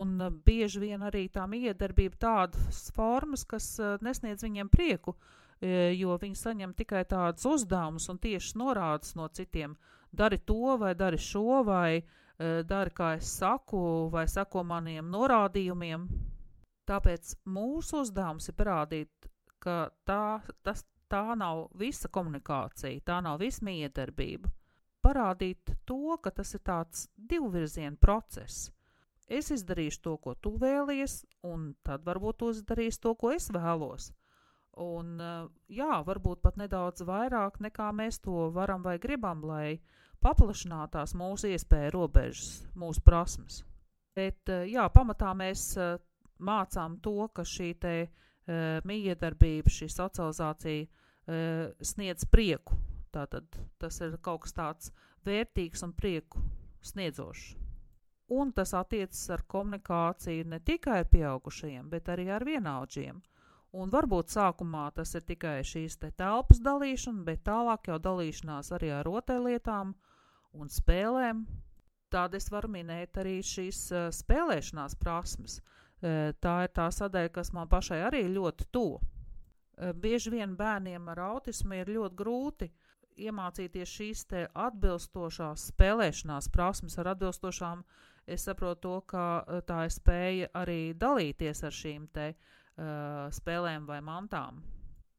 Un bieži vien arī tā miedarbība tādas formas, kas nesniedz viņiem prieku, jo viņi saņem tikai tādus uzdevumus un tieši norādes no citiem. Dari to, vai dari šo, vai dari, kā es saku, vai sako maniem norādījumiem. Tāpēc mūsu uzdevums ir parādīt, ka tā nav visa komunikācija, tā nav visa miedarbība. Parādīt to, ka tas ir tāds divvirziena process. Es izdarīšu to, ko tu vēlies, un tad varbūt tu izdarīsi to, ko es vēlos. Un jā, varbūt pat nedaudz vairāk nekā mēs to varam vai gribam, lai paplašinātās mūsu iespēja robežas, mūsu prasmes. Bet jā, pamatā mēs mācām to, ka šī te miedarbība, šī socializācija sniedz prieku. Tātad tas ir kaut kas tāds vērtīgs un prieku sniedzošs. Un tas attiecas ar komunikāciju ne tikai ar pieaugušajiem, bet arī ar vienaudžiem. Un varbūt sākumā tas ir tikai šīs te telpas dalīšana, bet tālāk jau dalīšanās arī ar rotaļlietām un spēlēm. Tāda es varu minēt arī šīs spēlēšanās prasmes. Tā ir tā sadaļa, kas man pašai arī ļoti tuva. Bieži vien bērniem ar autismu ir ļoti grūti iemācīties šīs te atbilstošās spēlēšanās prasmes. Ar atbilstošām es saprotu to, ka tā ir spēja arī dalīties ar šīm te spēlēm vai mantām.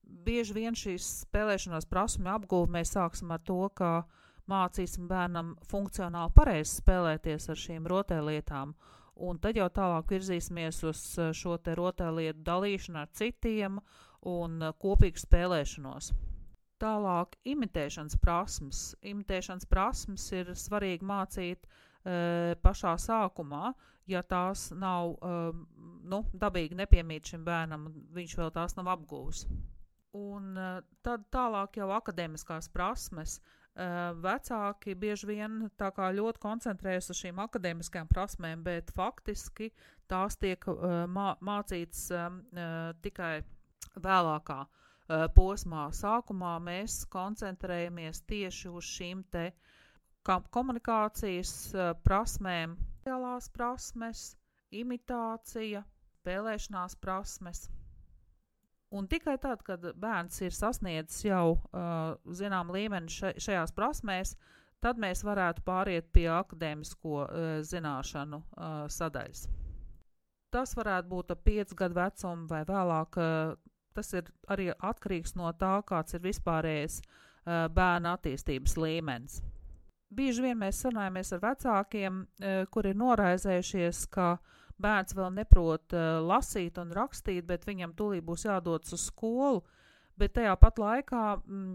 Bieži vien šīs spēlēšanās prasme apguve mēs sāksim ar to, ka mācīsim bērnam funkcionāli pareizi spēlēties ar šīm rotaļlietām, un tad jau tālāk virzīsimies uz šo te rotaļlietu dalīšanu ar citiem un kopīgu spēlēšanos. Tālāk imitēšanas prasmes. Imitēšanas prasmes ir svarīgi mācīt pašā sākumā, ja tās nav dabīgi nepiemīt šim bērnam, viņš vēl tās nav apguvis. Un tad tālāk jau akadēmiskās prasmes. Vecāki bieži vien tā kā ļoti koncentrējas uz šīm akadēmiskajām prasmēm, bet faktiski tās tiek mācītas tikai vēlākā posmā. Sākumā mēs koncentrējamies tieši uz šīm te komunikācijas prasmēm, sociālās prasmes, imitācija, spēlēšanās prasmes. Un tikai tad, kad bērns ir sasniedzis jau zinām līmeni šajās prasmēs, tad mēs varētu pāriet pie akadēmisko zināšanu sadaļas. Tas varētu būt ap 5 gadu vecumu vai vēlāk. Tas ir arī atkarīgs no tā, kāds ir vispārējais bērna attīstības līmenis. Bieži vien mēs sarunājamies ar vecākiem, kuri ir noraizējušies, ka bērns vēl neprot lasīt un rakstīt, bet viņam tūlīt būs jādodas uz skolu, bet tajā pat laikā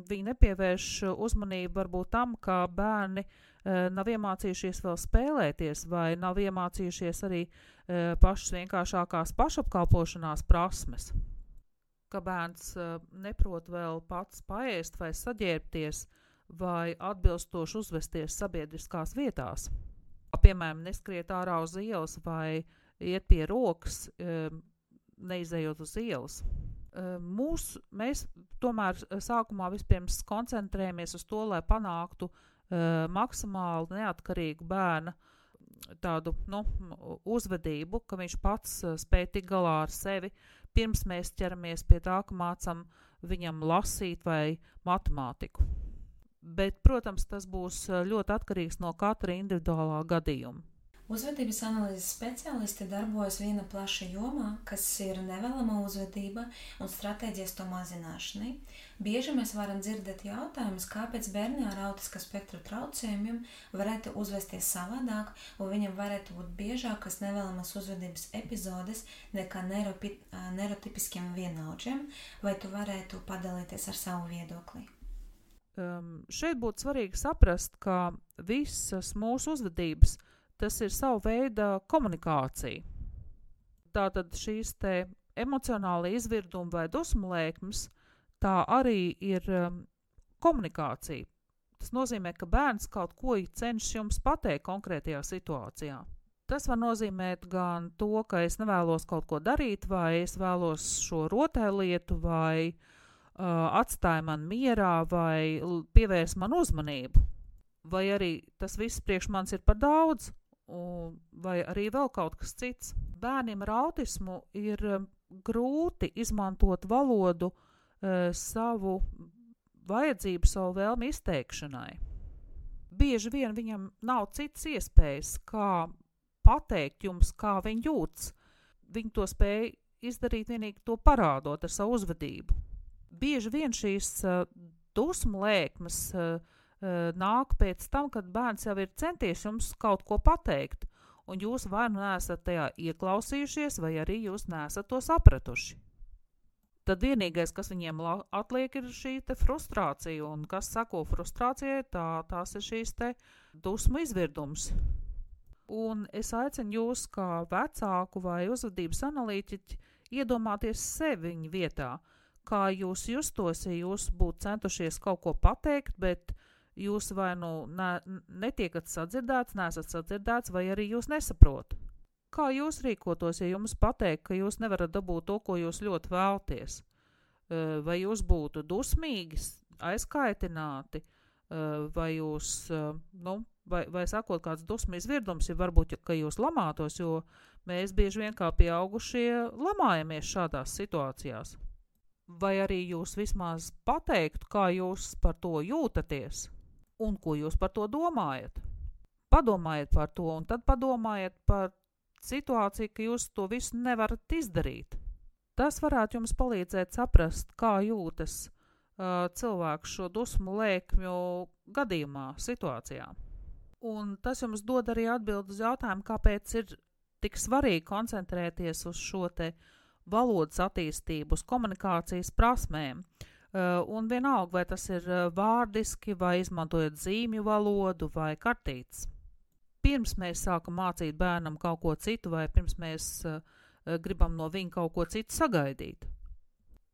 viņi nepievērš uzmanību varbūt tam, ka bērni nav iemācījušies vēl spēlēties vai nav iemācījušies arī pašas vienkāršākās pašapkalpošanās prasmes. Ka bērns neprot vēl pats paēst vai saģērbties vai atbilstoši uzvesties sabiedriskās vietās. Piemēram, neskriet ārā uz ielas vai iet pie rokas, neizejot uz ielas. Mēs tomēr sākumā vispirms koncentrējamies uz to, lai panāktu maksimāli neatkarīgu bērna tādu uzvedību, ka viņš pats spēj tikt galā ar sevi, pirms mēs ķeramies pie tā, ka mācam viņam lasīt vai matemātiku. Bet, protams, tas būs ļoti atkarīgs no katra individuālā gadījuma. Uzvedības analīzes speciālisti darbojas viena plaša jomā, kas ir nevēlama uzvedība un stratēģijas to mazināšanai. Bieži mēs varam dzirdēt jautājumus, kāpēc bērni ar autiska spektra traucējumiem varētu uzvesties savādāk, un viņam varētu būt biežākas nevēlamas uzvedības epizodes nekā neirotipiskiem vienaudžiem, vai tu varētu padalīties ar savu viedokli? Šeit būtu svarīgi saprast, ka visas mūsu uzvedības tas ir savu veidu komunikācija. Tātad šīs te emocionāli izvirdumi vai dusmu lēkmes, tā arī ir komunikācija. Tas nozīmē, ka bērns kaut ko cenšas jums pateikt konkrētajā situācijā. Tas var nozīmēt gan to, ka es nevēlos kaut ko darīt, vai es vēlos šo rotaļlietu, vai atstāja man mierā, vai pievērs man uzmanību. Vai arī tas viss priekš manis ir par daudz, vai arī vēl kaut kas cits. Bērniem ar autismu ir grūti izmantot valodu savu vajadzību, savu vēlmi izteikšanai. Bieži vien viņam nav citas iespējas, kā pateikt jums, kā viņi jūtas. Viņi to spēj izdarīt vienīgi to parādot ar savu uzvedību. Bieži vien šīs dusmu lēkmes nāk pēc tam, kad bērns jau ir centies jums kaut ko pateikt, un jūs vai nu neesat tajā ieklausījušies, vai arī jūs neesat to sapratuši. Tad vienīgais, kas viņiem atliek, ir šī te frustrācija, un kas sako frustrācijai, tās ir šīs te dusmu izvirdums. Un es aicinu jūs, kā vecāku vai uzvedības analītiķi, iedomāties sevi viņa vietā, kā jūs justos, ja jūs būtu centušies kaut ko pateikt, bet jūs vai nu netiekat sadzirdēts, neesat sadzirdēts, vai arī jūs nesaprot. Kā jūs rīkotos, ja jums pateikt, ka jūs nevarat dabūt to, ko jūs ļoti vēlties? Vai jūs būtu dusmīgi, aizkaitināti, vai jūs, vai sakot kāds dusmu izvirdums, ja varbūt, ka jūs lamātos, jo mēs bieži vien kā pieaugušie lamājamies šādās situācijās. Vai arī jūs vismaz pateiktu, kā jūs par to jūtaties un ko jūs par to domājat. Padomājiet par to un tad padomājiet par situāciju, ka jūs to visu nevarat izdarīt. Tas varētu jums palīdzēt saprast, kā jūtas cilvēku šo dusmu lēkmju gadījumā, situācijā. Un tas jums dod arī atbildi uz jautājumu, kāpēc ir tik svarīgi koncentrēties uz šo te valodas attīstību, uz komunikācijas prasmēm. Un vienalga, vai tas ir vārdiski, vai izmantojot zīmju valodu, vai kartītes. Pirms mēs sākam mācīt bērnam kaut ko citu, vai pirms mēs gribam no viņa kaut ko citu sagaidīt.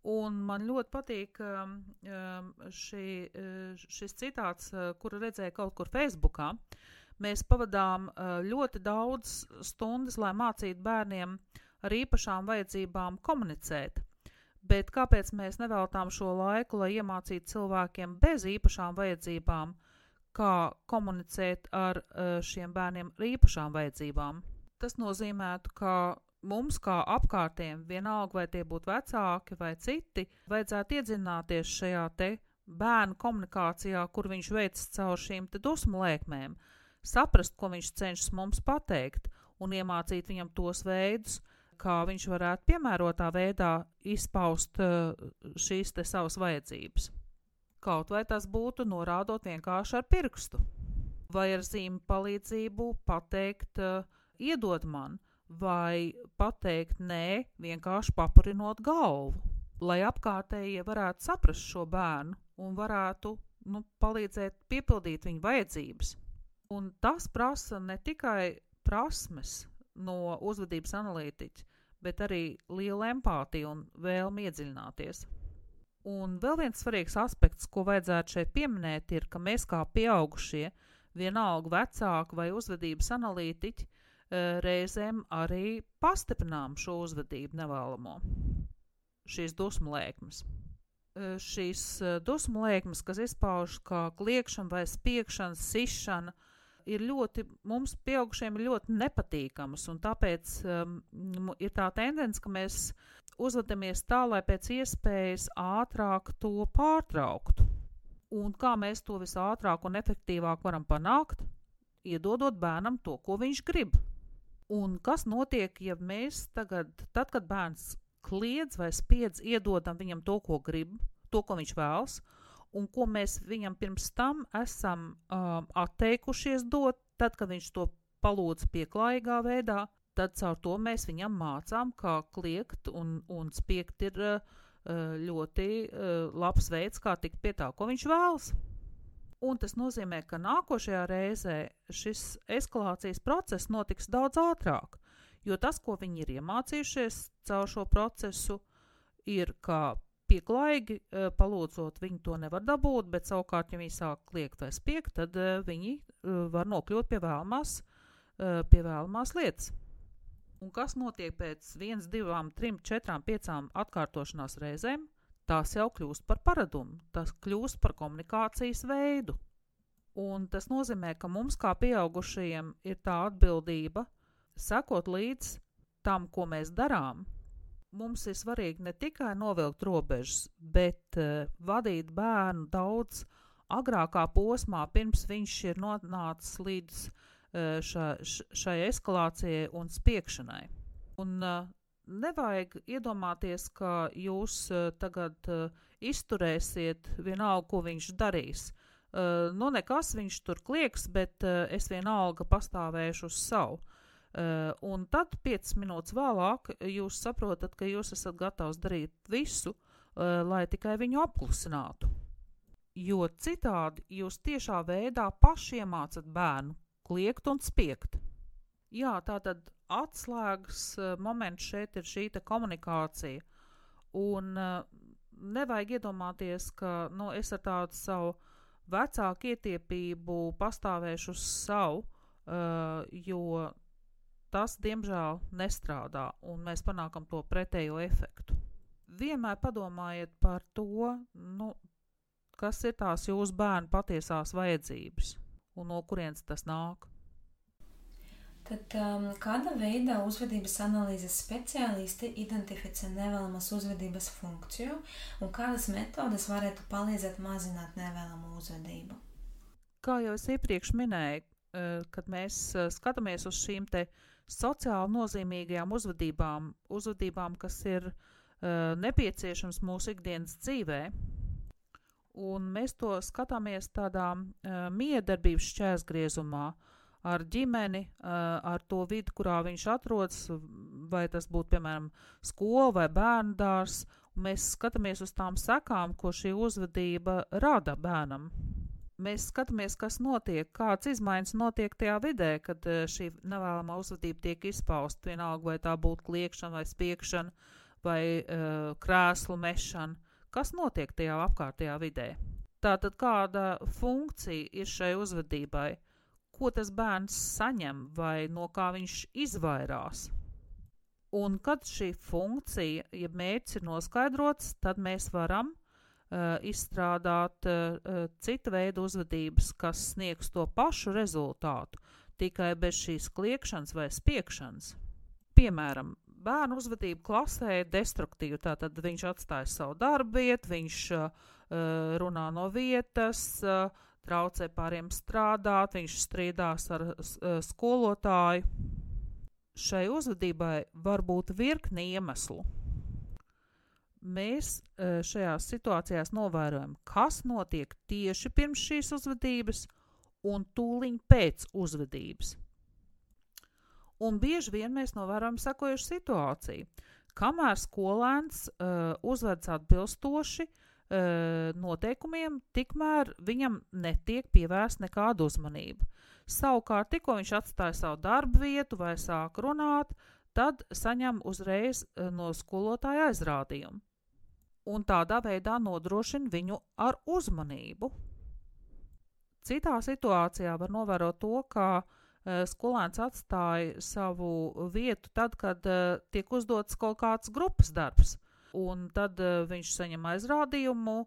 Un man ļoti patīk šis citāts, kuru redzēju kaut kur Facebookā. Mēs pavadām ļoti daudz stundas, lai mācītu bērniem ar īpašām vajadzībām komunicēt. Bet kāpēc mēs neveltām šo laiku, lai iemācītu cilvēkiem bez īpašām vajadzībām, kā komunicēt ar šiem bērniem ar īpašām vajadzībām? Tas nozīmētu, ka mums kā apkārtiem, vienalga vai tie būtu vecāki vai citi, vajadzētu iedzināties šajā te bērnu komunikācijā, kur viņš veic caur šīm te dusmu lēkmēm, saprast, ko viņš cenšas mums pateikt un iemācīt viņam tos veidus, kā viņš varētu piemērotā veidā izpaust šīs te savas vajadzības. Kaut vai tas būtu norādot vienkārši ar pirkstu, vai ar zīmi palīdzību pateikt iedod man, vai pateikt nē, vienkārši papurinot galvu, lai apkārtējie varētu saprast šo bērnu un varētu palīdzēt piepildīt viņa vajadzības. Un tas prasa ne tikai prasmes no uzvedības analītiķa, bet arī liela empātija un vēlme iedziļināties. Un vēl viens svarīgs aspekts, ko vajadzētu šeit pieminēt, ir, ka mēs kā pieaugušie, vienalga vecāki vai uzvedības analītiķi, reizēm arī pastiprinām šo uzvedību nevēlamo, šīs dusmu lēkmes. Šīs dusmu lēkmes, kas izpaužas kā kliekšana vai spiekšana, sišana, mums pieaugušiem ir ļoti nepatīkamas, un tāpēc ir tā tendence, ka mēs uzvedamies tā, lai pēc iespējas ātrāk to pārtrauktu. Un kā mēs to visātrāk un efektīvāk varam panākt? Iedodot bērnam to, ko viņš grib. Un kas notiek, ja mēs tad, kad bērns kliedz vai spiedz, iedodam viņam to, ko grib, to, ko viņš vēlas, un ko mēs viņam pirms tam esam atteikušies dot, tad, kad viņš to palūdz pieklājīgā veidā, tad caur to mēs viņam mācām, kā kliegt un spiegt ir ļoti labs veids, kā tikt pie tā, ko viņš vēlas. Un tas nozīmē, ka nākošajā reizē šis eskalācijas process notiks daudz ātrāk, jo tas, ko viņi ir iemācījušies caur šo procesu, ir, kā pieklājīgi palūdzot, viņi to nevar dabūt, bet savukārt, ja viņi sāk kliegt vai spiegt, tad viņi var nokļūt pie vēlamās lietas. Un kas notiek pēc 1, 2, 3, 4, 5 atkārtošanās reizēm? Tas jau kļūst par paradumu, tas kļūst par komunikācijas veidu. Un tas nozīmē, ka mums kā pieaugušajiem ir tā atbildība sekot līdz tam, ko mēs darām. Mums ir svarīgi ne tikai novilkt robežas, bet vadīt bērnu daudz agrākā posmā, pirms viņš ir nonācis līdz šai eskalācijai un spiekšanai. Un nevajag iedomāties, ka jūs tagad izturēsiet vienalga, ko viņš darīs. Nekas viņš tur klieks, bet es vienalga pastāvēšu uz savu. Un tad 5 minūtes vēlāk jūs saprotat, ka jūs esat gatavs darīt visu, lai tikai viņu apklusinātu. Jo citādi jūs tiešā veidā paši iemācat bērnu kliegt un spiegt. Jā, tātad atslēgas moments šeit ir šī komunikācija. Un nevajag iedomāties, ka es ar tādu savu vecāku ietiepību pastāvēšu uz savu, jo tas, diemžēl, nestrādā, un mēs panākam to pretējo efektu. Vienmēr padomājiet par to, kas ir tās jūsu bērnu patiesās vajadzības, un no kurienes tas nāk. Tad kāda veida uzvedības analīzes speciālisti identificē nevēlamas uzvedības funkciju un kādas metodes varētu palīdzēt mazināt nevēlamu uzvedību? Kā jau es iepriekš minēju, kad mēs skatāmies uz šīm te sociāli nozīmīgajām uzvedībām, kas ir nepieciešams mūsu ikdienas dzīvē, Un mēs to skatāmies tādā miedarbības šķērsgriezumā ar ģimeni, ar to vidi, kurā viņš atrodas, vai tas būtu, piemēram, skola vai bērndārs. Mēs skatāmies uz tām sekām, ko šī uzvedība rada bērnam. Mēs skatāmies, kas notiek, kāds izmaiņas notiek tajā vidē, kad šī nevēlamā uzvedība tiek izpausta, vienalga vai tā būtu kliekšana vai spiekšana vai krēslu mešana. Kas notiek tajā apkārtējā vidē? Tātad kāda funkcija ir šai uzvedībai? Ko tas bērns saņem vai no kā viņš izvairās? Un kad šī funkcija, ja mērķis ir noskaidrots, tad mēs varam izstrādāt cita veida uzvedības, kas sniegs to pašu rezultātu, tikai bez šīs kliekšanas vai spiekšanas. Piemēram, bērnu uzvedība klasē ir destruktīva, tātad viņš atstāja savu darbu vietu, viņš runā no vietas, traucē pāriem strādāt, viņš strīdās ar skolotāju. Šai uzvedībai var būt virkni iemeslu. Mēs šajās situācijās novērojam, kas notiek tieši pirms šīs uzvedības un tūliņ pēc uzvedības. Un bieži vien mēs novērojam sekojušu situāciju. Kamēr skolēns uzvedas atbilstoši noteikumiem, tikmēr viņam netiek pievērsta nekāda uzmanība. Savukārt, tikko viņš atstāja savu darbu vietu vai sāk runāt, tad saņem uzreiz no skolotāja aizrādījumu. Un tādā veidā nodrošina viņu ar uzmanību. Citā situācijā var novērot to, ka skolēns atstāja savu vietu tad, kad tiek uzdots kaut kāds grupas darbs. Un tad viņš saņem aizrādījumu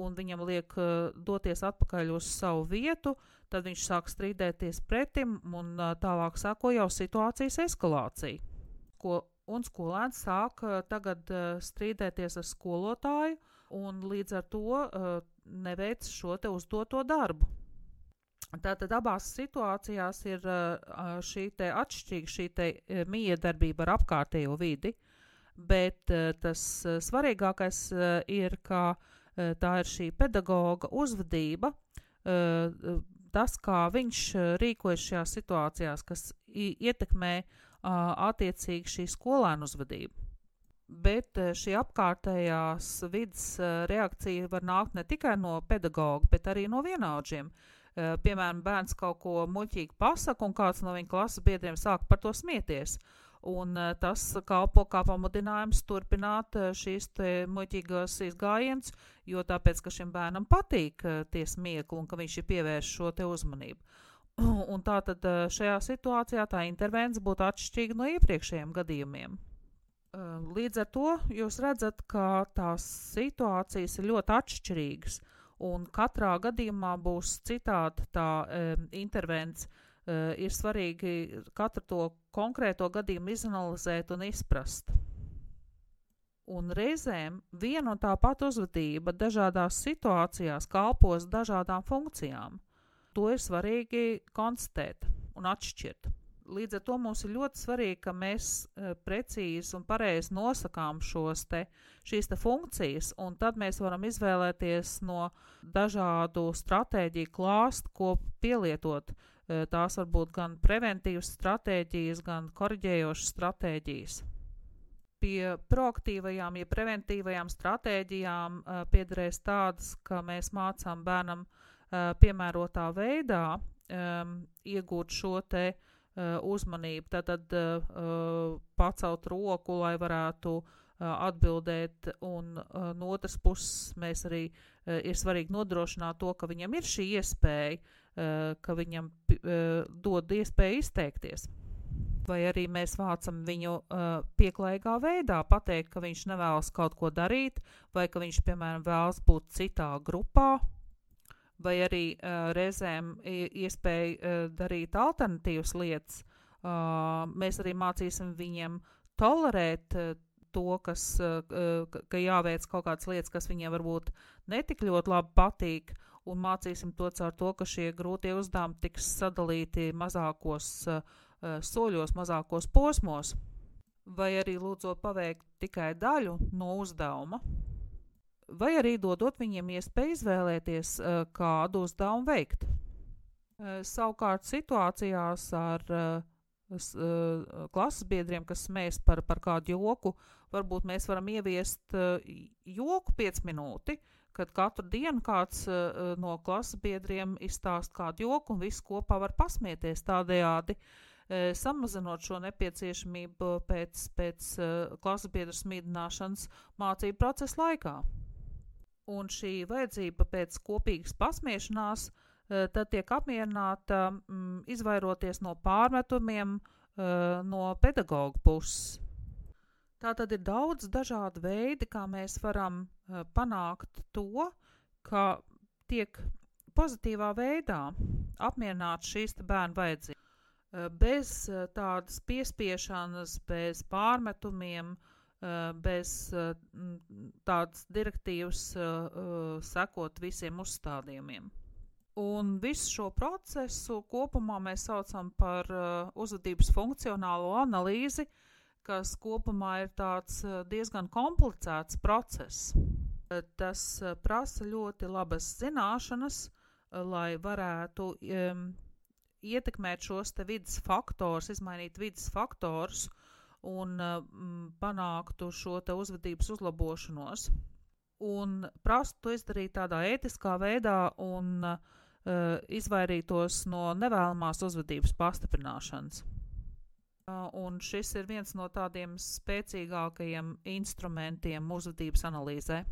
un viņam liek doties atpakaļ uz savu vietu, tad viņš sāk strīdēties pretim un tālāk sāko jau situācijas eskalācija. Un skolēns sāk tagad strīdēties ar skolotāju un līdz ar to neveic šo te uzdoto darbu. Tātad abās situācijās ir šī te atšķirīga, šī te miedarbība ar apkārtējo vidi, bet tas svarīgākais ir, ka tā ir šī pedagoga uzvedība, tas, kā viņš rīkojas šajās situācijās, kas ietekmē attiecīgi šī skolēnu uzvedību. Bet šī apkārtējās vidas reakcija var nākt ne tikai no pedagoga, bet arī no vienaudžiem. Piemēram, bērns kaut ko muļķīgi pasaka un kāds no viņa klases biedriem sāk par to smieties. Un tas kalpo kā pamudinājums turpināt šīs muļķīgās izgājienus, jo tāpēc, ka šim bērnam patīk tie smiekli un ka viņš ir pievērš šo te uzmanību. Un tātad šajā situācijā tā intervence būtu atšķirīga no iepriekšējiem gadījumiem. Līdz ar to jūs redzat, ka tās situācijas ir ļoti atšķirīgas un katrā gadījumā būs citāda tā intervence. Ir svarīgi katru to konkrēto gadījumu izanalizēt un izprast. Un reizēm viena un tā pati uzvedība dažādās situācijās kalpos dažādām funkcijām. To ir svarīgi konstatēt un atšķirt. Līdz ar to mums ir ļoti svarīgi, ka mēs precīzi un pareizi nosakām šīs funkcijas, un tad mēs varam izvēlēties no dažādu stratēģiju klāstu, ko pielietot. Tās var būt gan preventīvas stratēģijas, gan koriģējošas stratēģijas. Pie proaktīvajām, ja preventīvajām stratēģijām piederēs tādas, ka mēs mācām bērnam piemērotā veidā iegūt šo te uzmanību, tad pacelt roku, lai varētu atbildēt, un no otras puses mēs arī ir svarīgi nodrošināt to, ka viņam ir šī iespēja, ka viņam dod iespēju izteikties. Vai arī mēs vācam viņu pieklājīgā veidā, pateikt, ka viņš nevēlas kaut ko darīt, vai ka viņš, piemēram, vēlas būt citā grupā, vai arī reizēm iespēja darīt alternatīvas lietas. Mēs arī mācīsim viņiem tolerēt to, ka jāveic kaut kādas lietas, kas viņiem varbūt netik ļoti labi patīk, un mācīsim to caur to, ka šie grūtie uzdevumi tiks sadalīti mazākos soļos, mazākos posmos, vai arī lūdzot paveikt tikai daļu no uzdevuma. vai arī dodot viņiem iespēju izvēlēties, kādu uzdevumu veikt. Savukārt situācijās ar klases biedriem, kas smējas par kādu joku, varbūt mēs varam ieviest joku 5 minūti, kad katru dienu kāds no klases biedriem izstāst kādu joku un visi kopā var pasmieties, tādējādi samazinot šo nepieciešamību pēc klases biedru smīdināšanas mācību procesa laikā. Un šī vajadzība pēc kopīgas pasmiešanās tad tiek apmierināta, izvairoties no pārmetumiem no pedagoga puses. Tātad ir daudz dažādu veidi, kā mēs varam panākt to, ka tiek pozitīvā veidā apmierināt šīs bērnu vajadzības. Bez tādas piespiešanas, bez pārmetumiem, bez tādas direktīvas sekot visiem uzstādījumiem. Un visu šo procesu kopumā mēs saucam par uzvedības funkcionālo analīzi, kas kopumā ir tāds diezgan komplicēts process. Tas prasa ļoti labas zināšanas, lai varētu ietekmēt šos te vides faktors, izmainīt vides faktors un panāktu šo te uzvedības uzlabošanos. Un prastu to izdarīt tādā ētiskā veidā un izvairītos no nevēlamās uzvedības pastiprināšanas. Un šis ir viens no tādiem spēcīgākajiem instrumentiem uzvedības analīzē.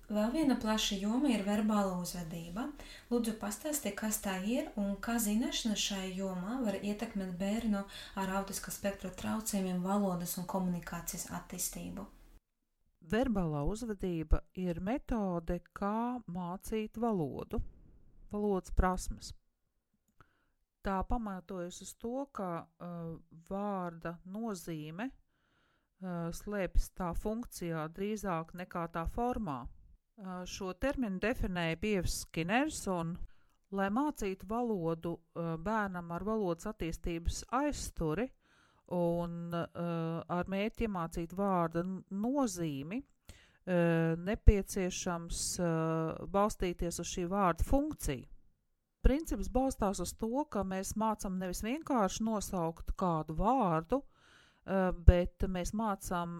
Vēl viena plaša joma ir verbāla uzvedība. Lūdzu, pastāsti, kas tā ir un kā zināšana šai jomā var ietekmēt bērnu ar autiska spektra traucējumiem valodas un komunikācijas attīstību. Verbālā uzvedība ir metode, kā mācīt valodas prasmes. Tā pamatojas uz to, ka vārda nozīme slēpjas tā funkcijā drīzāk nekā tā formā. Šo terminu definēja Pievs Skiners, un, lai mācītu valodu bērnam ar valodas attīstības aizsturi un ar mērķi iemācīt vārda nozīmi, nepieciešams balstīties uz šī vārda funkciju. Princips balstās uz to, ka mēs mācām nevis vienkārši nosaukt kādu vārdu, bet mēs mācām,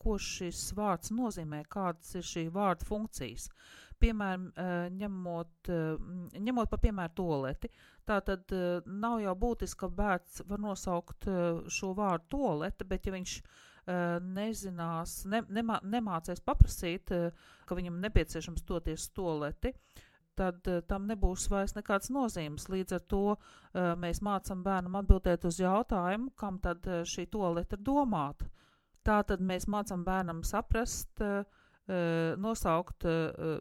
ko šis vārds nozīmē, kādas ir šī vārda funkcijas. Piemēram, ņemot par piemēru tualeti. Tātad nav jau būtiski, ka bērns var nosaukt šo vārdu tualete, bet ja viņš nezinās, nemācēs paprasīt, ka viņam nepieciešams doties tualeti, tad tam nebūs vairs nekāds nozīmes. Līdz ar to mēs mācam bērnam atbildēt uz jautājumu, kam tad šī tualete ir domāta. Tātad mēs mācam bērnam saprast, nosaukt,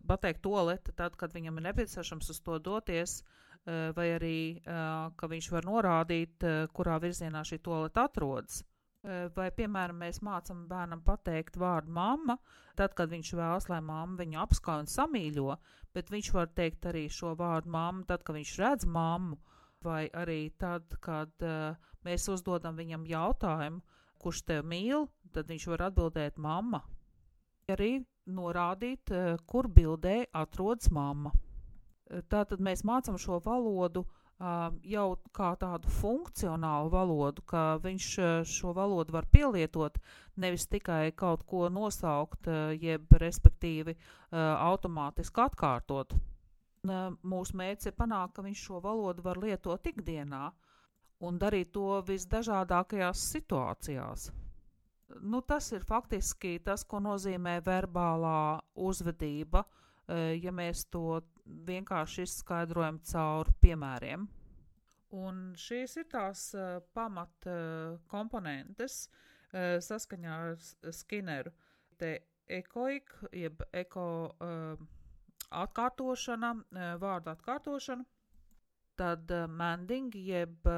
pateikt tualete tad, kad viņam ir nepieciešams uz to doties, vai arī, ka viņš var norādīt, kurā virzienā šī tualete atrodas. Vai, piemēram, mēs mācam bērnam pateikt vārdu mamma, tad, kad viņš vēlas, lai mamma viņu apskauj un samīļo, bet viņš var teikt arī šo vārdu mamma, tad, kad viņš redz mammu, vai arī tad, kad mēs uzdodam viņam jautājumu, kurš tev mīl, tad viņš var atbildēt mamma. Arī norādīt, kur bildē atrodas mamma. Tātad mēs mācam šo valodu jau kā tādu funkcionālu valodu, ka viņš šo valodu var pielietot, nevis tikai kaut ko nosaukt, jeb respektīvi automātiski atkārtot. Mūsu mērķis ir panākt, ka viņš šo valodu var lietot ikdienā un darīt to visdažādākajās situācijās. Tas ir faktiski tas, ko nozīmē verbālā uzvedība, ja mēs to vienkārši izskaidrojam caur piemēriem. Un šīs ir tās pamat komponentes saskaņā ar Skinneru. Te ekoik, jeb eko atkārtošana, vārdu atkārtošana, tad manding, jeb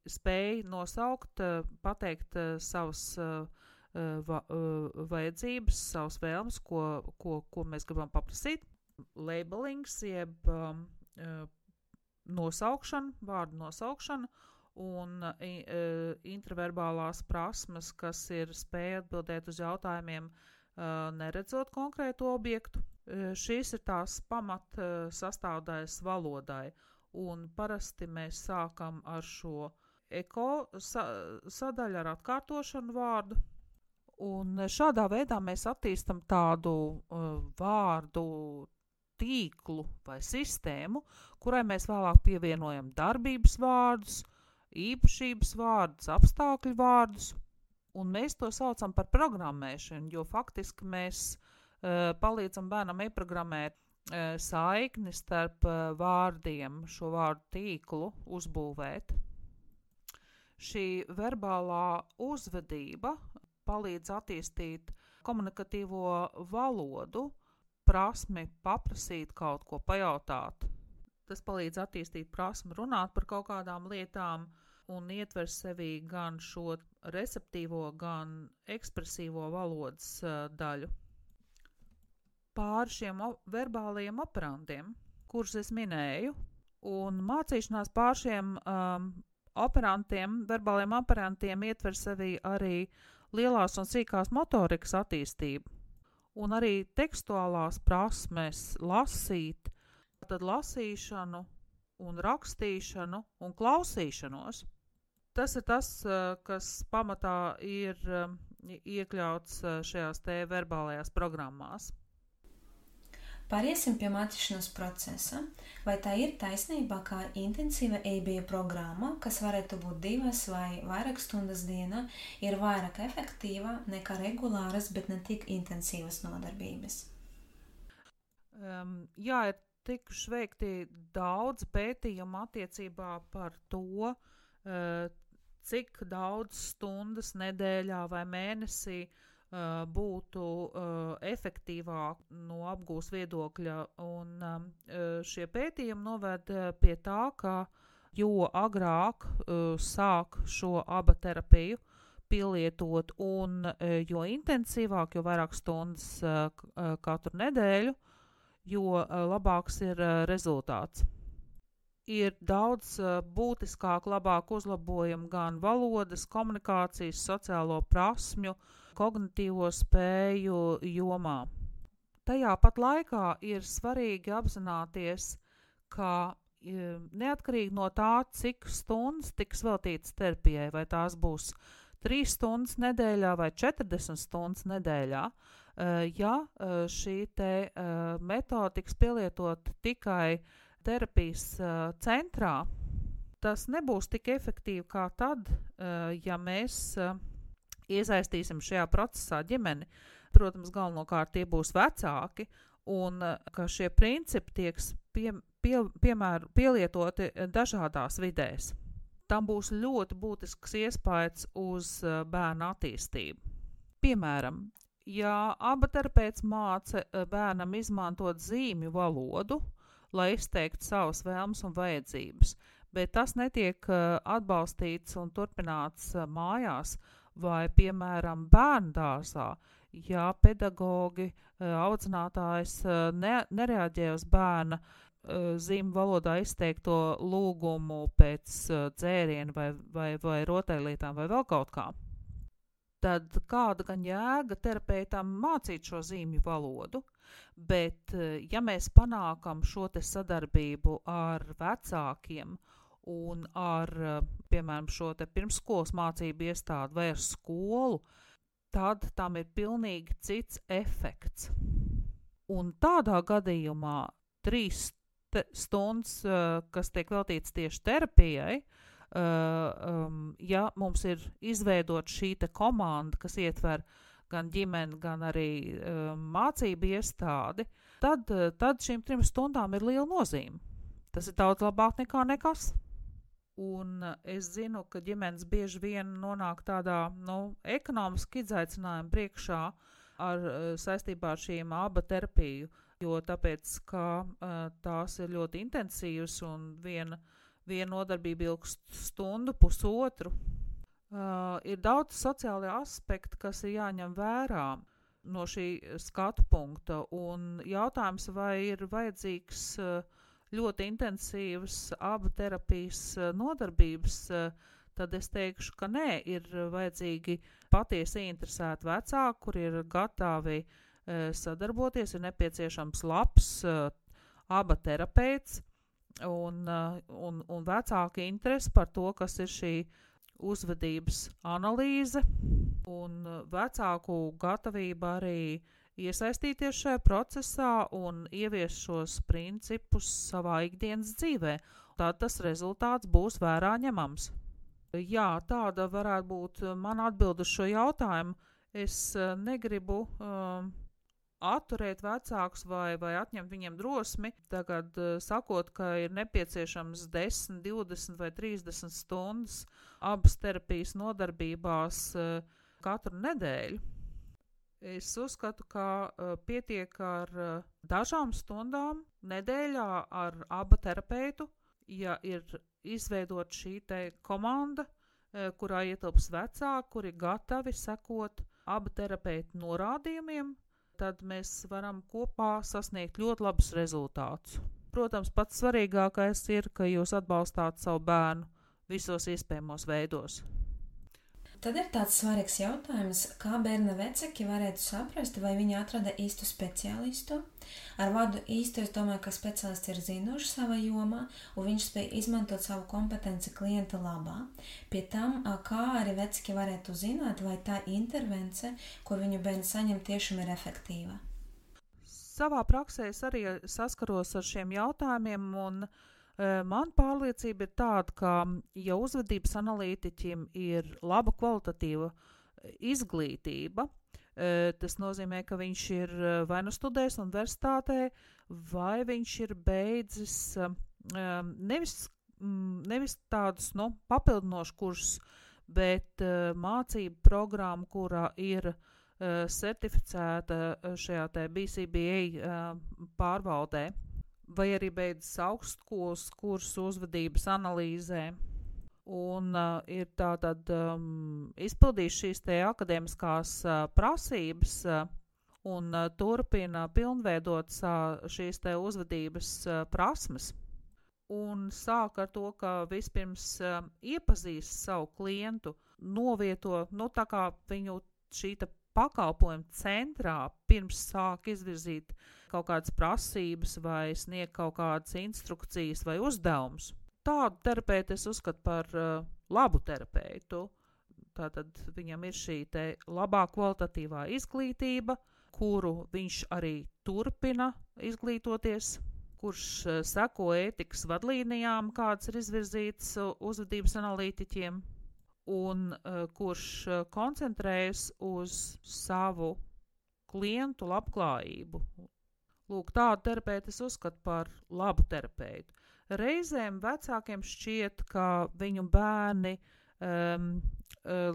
spēja nosaukt, pateikt savas vajadzības, savas vēlmes, ko mēs gribam paprasīt. Labelings, jeb nosaukšana, vārdu nosaukšana un intraverbālās prasmes, kas ir spēja atbildēt uz jautājumiem, neredzot konkrētu objektu. Šīs ir tās pamat sastāvdaļas valodai, un parasti mēs sākam ar šo eko sadaļu ar atkārtošanu vārdu, un šādā veidā mēs attīstam tādu vārdu tīklu vai sistēmu, kurai mēs vēlāk pievienojam darbības vārdus, īpašības vārdus, apstākļu vārdus, un mēs to saucam par programmēšanu, jo faktiski mēs palīdzam bērnam ieprogrammēt saikni starp vārdiem, šo vārdu tīklu uzbūvēt. Šī verbālā uzvedība palīdz attīstīt komunikatīvo valodu, prasmi paprasīt kaut ko, pajautāt. Tas palīdz attīstīt prasmi runāt par kaut kādām lietām un ietver sevī gan šo receptīvo, gan ekspresīvo valodas daļu. Pāri šiem verbālajiem operantiem, kurus es minēju, un mācīšanās pāri šiem verbālajiem operantiem ietver sevī arī lielās un sīkās motorikas attīstību, un arī tekstuālās prasmes lasīt, tad lasīšanu un rakstīšanu un klausīšanos. Tas ir tas, kas pamatā ir iekļauts šajās te verbālajās programmās. Pāriesim pie mācīšanās procesa. Vai tā ir taisnība, ka intensīva EIB programma, kas varētu būt 2 vai vairāk stundas dienā, ir vairāk efektīva nekā regulāras, bet ne tik intensīvas nodarbības? Jā, ir tikuši veikti daudz pētījumu attiecībā par to, cik daudz stundas nedēļā vai mēnesī būtu efektīvāk no apgūs viedokļa, un šie pētījumi noved pie tā, ka jo agrāk sāk šo aba terapiju pielietot un jo intensīvāk, jo vairāk stundas katru nedēļu, jo labāks ir rezultāts. Ir daudz būtiskāk, labāk uzlabojumi gan valodas, komunikācijas, sociālo prasmju, kognitīvo spēju jomā. Tajā pat laikā ir svarīgi apzināties, ka neatkarīgi no tā, cik stundas tiks veltītas terapijai, vai tās būs 3 stundas nedēļā vai 40 stundas nedēļā, ja šī te metode tiks pielietot tikai terapijas centrā, tas nebūs tik efektīvi kā tad, ja mēs iesaistīsim šajā procesā ģimeni. Protams, galvenokārt tie būs vecāki, un ka šie principi tieks pielietoti dažādās vidēs. Tam būs ļoti būtisks iespējas uz bērna attīstību. Piemēram, ja aba terapeits māca bērnam izmantot zīmju valodu, lai izteiktu savas vēlmes un vajadzības, bet tas netiek atbalstīts un turpināts mājās, vai, piemēram, bērndārzā, ja pedagogi, audzinātājs nereaģē uz bērna zīmju valodā izteikto lūgumu pēc dzēriena vai rotaļlietām vai vēl kaut kā, tad kāda gan jēga terapeitam mācīt šo zīmju valodu, bet ja mēs panākam šo te sadarbību ar vecākiem un ar, piemēram, šo te pirmsskolas mācību iestādi vai ar skolu, tad tam ir pilnīgi cits efekts. Un tādā gadījumā 3 stundas, kas tiek veltīts tieši terapijai, ja mums ir izveidot šī te komanda, kas ietver gan ģimeni, gan arī mācību iestādi, tad šīm 3 stundām ir liela nozīme. Tas ir daudz labāk nekā nekas. Un es zinu, ka ģimenes bieži vien nonāk tādā, ekonomiski izaicinājuma priekšā saistībā ar šīm aba terapiju, jo tāpēc, ka tās ir ļoti intensīvas un viena nodarbība ilgst stundu, pusotru. Ir daudz sociālie aspekti, kas ir jāņem vērā no šī skatu punkta, un jautājums, vai ir vajadzīgs ļoti intensīvas aba terapijas nodarbības, tad es teikšu, ka nē, ir vajadzīgi patiesi interesēti vecāki, kuri ir gatavi sadarboties, ir nepieciešams labs aba terapeits un vecāki interesi par to, kas ir šī uzvedības analīze un vecāku gatavība arī iesaistīties šajā procesā un ieviest šos principus savā ikdienas dzīvē. Tad tas rezultāts būs vērā ņemams. Jā, tāda varētu būt mana atbilde uz šo jautājumu. Es negribu atturēt vecākus vai atņemt viņiem drosmi, tagad sakot, ka ir nepieciešams 10, 20 vai 30 stundas abas terapijas nodarbībās katru nedēļu. Es uzskatu, ka pietiek ar dažām stundām nedēļā ar aba terapeitu, ja ir izveidot šī te komanda, kurā ietilps vecāki, kuri gatavi sekot aba terapeitu norādījumiem, tad mēs varam kopā sasniegt ļoti labus rezultātus. Protams, pats svarīgākais ir, ka jūs atbalstāt savu bērnu visos iespējamos veidos. Tad ir tāds svarīgs jautājums, kā bērna vecāki varētu saprast, vai viņi atrada īstu speciālistu. Ar vārdu īstu es domāju, ka speciālists ir zinošs savā jomā, un viņš spēj izmantot savu kompetenci klienta labā. Pie tam, kā arī vecāki varētu zināt, vai tā intervence, ko viņu bērns saņem, tiešām ir efektīva. Savā praksē es arī saskaros ar šiem jautājumiem, un man pārliecība ir tāda, ka, ja uzvedības analītiķim ir laba kvalitatīva izglītība, tas nozīmē, ka viņš ir vai nu studējis universitātē, vai viņš ir beidzis nevis tādus papildinošus kursus, bet mācību programmu, kurā ir certificēta šajā te BCBA pārvaldē, vai arī beidzis augstskolas kursu uzvedības analīzē un ir tātad izpildījis šīs te akadēmiskās prasības un turpina pilnveidot šīs te uzvedības prasmes. Un sāk ar to, ka vispirms iepazīst savu klientu, novieto, tā kā viņu šī te pakalpojuma centrā pirms sāk izvirzīt kaut kādas prasības vai sniegt kaut kādas instrukcijas vai uzdevumus. Tādu terapeitu es uzskatu par labu terapeitu. Tātad viņam ir šī te labā kvalitatīvā izglītība, kuru viņš arī turpina izglītoties, kurš seko ētikas vadlīnijām, kādas ir izvirzītas uzvedības analītiķiem, un kurš koncentrējas uz savu klientu labklājību. Lūk, tādu terapeitu es uzskatu par labu terapeitu. Reizēm vecākiem šķiet, ka viņu bērni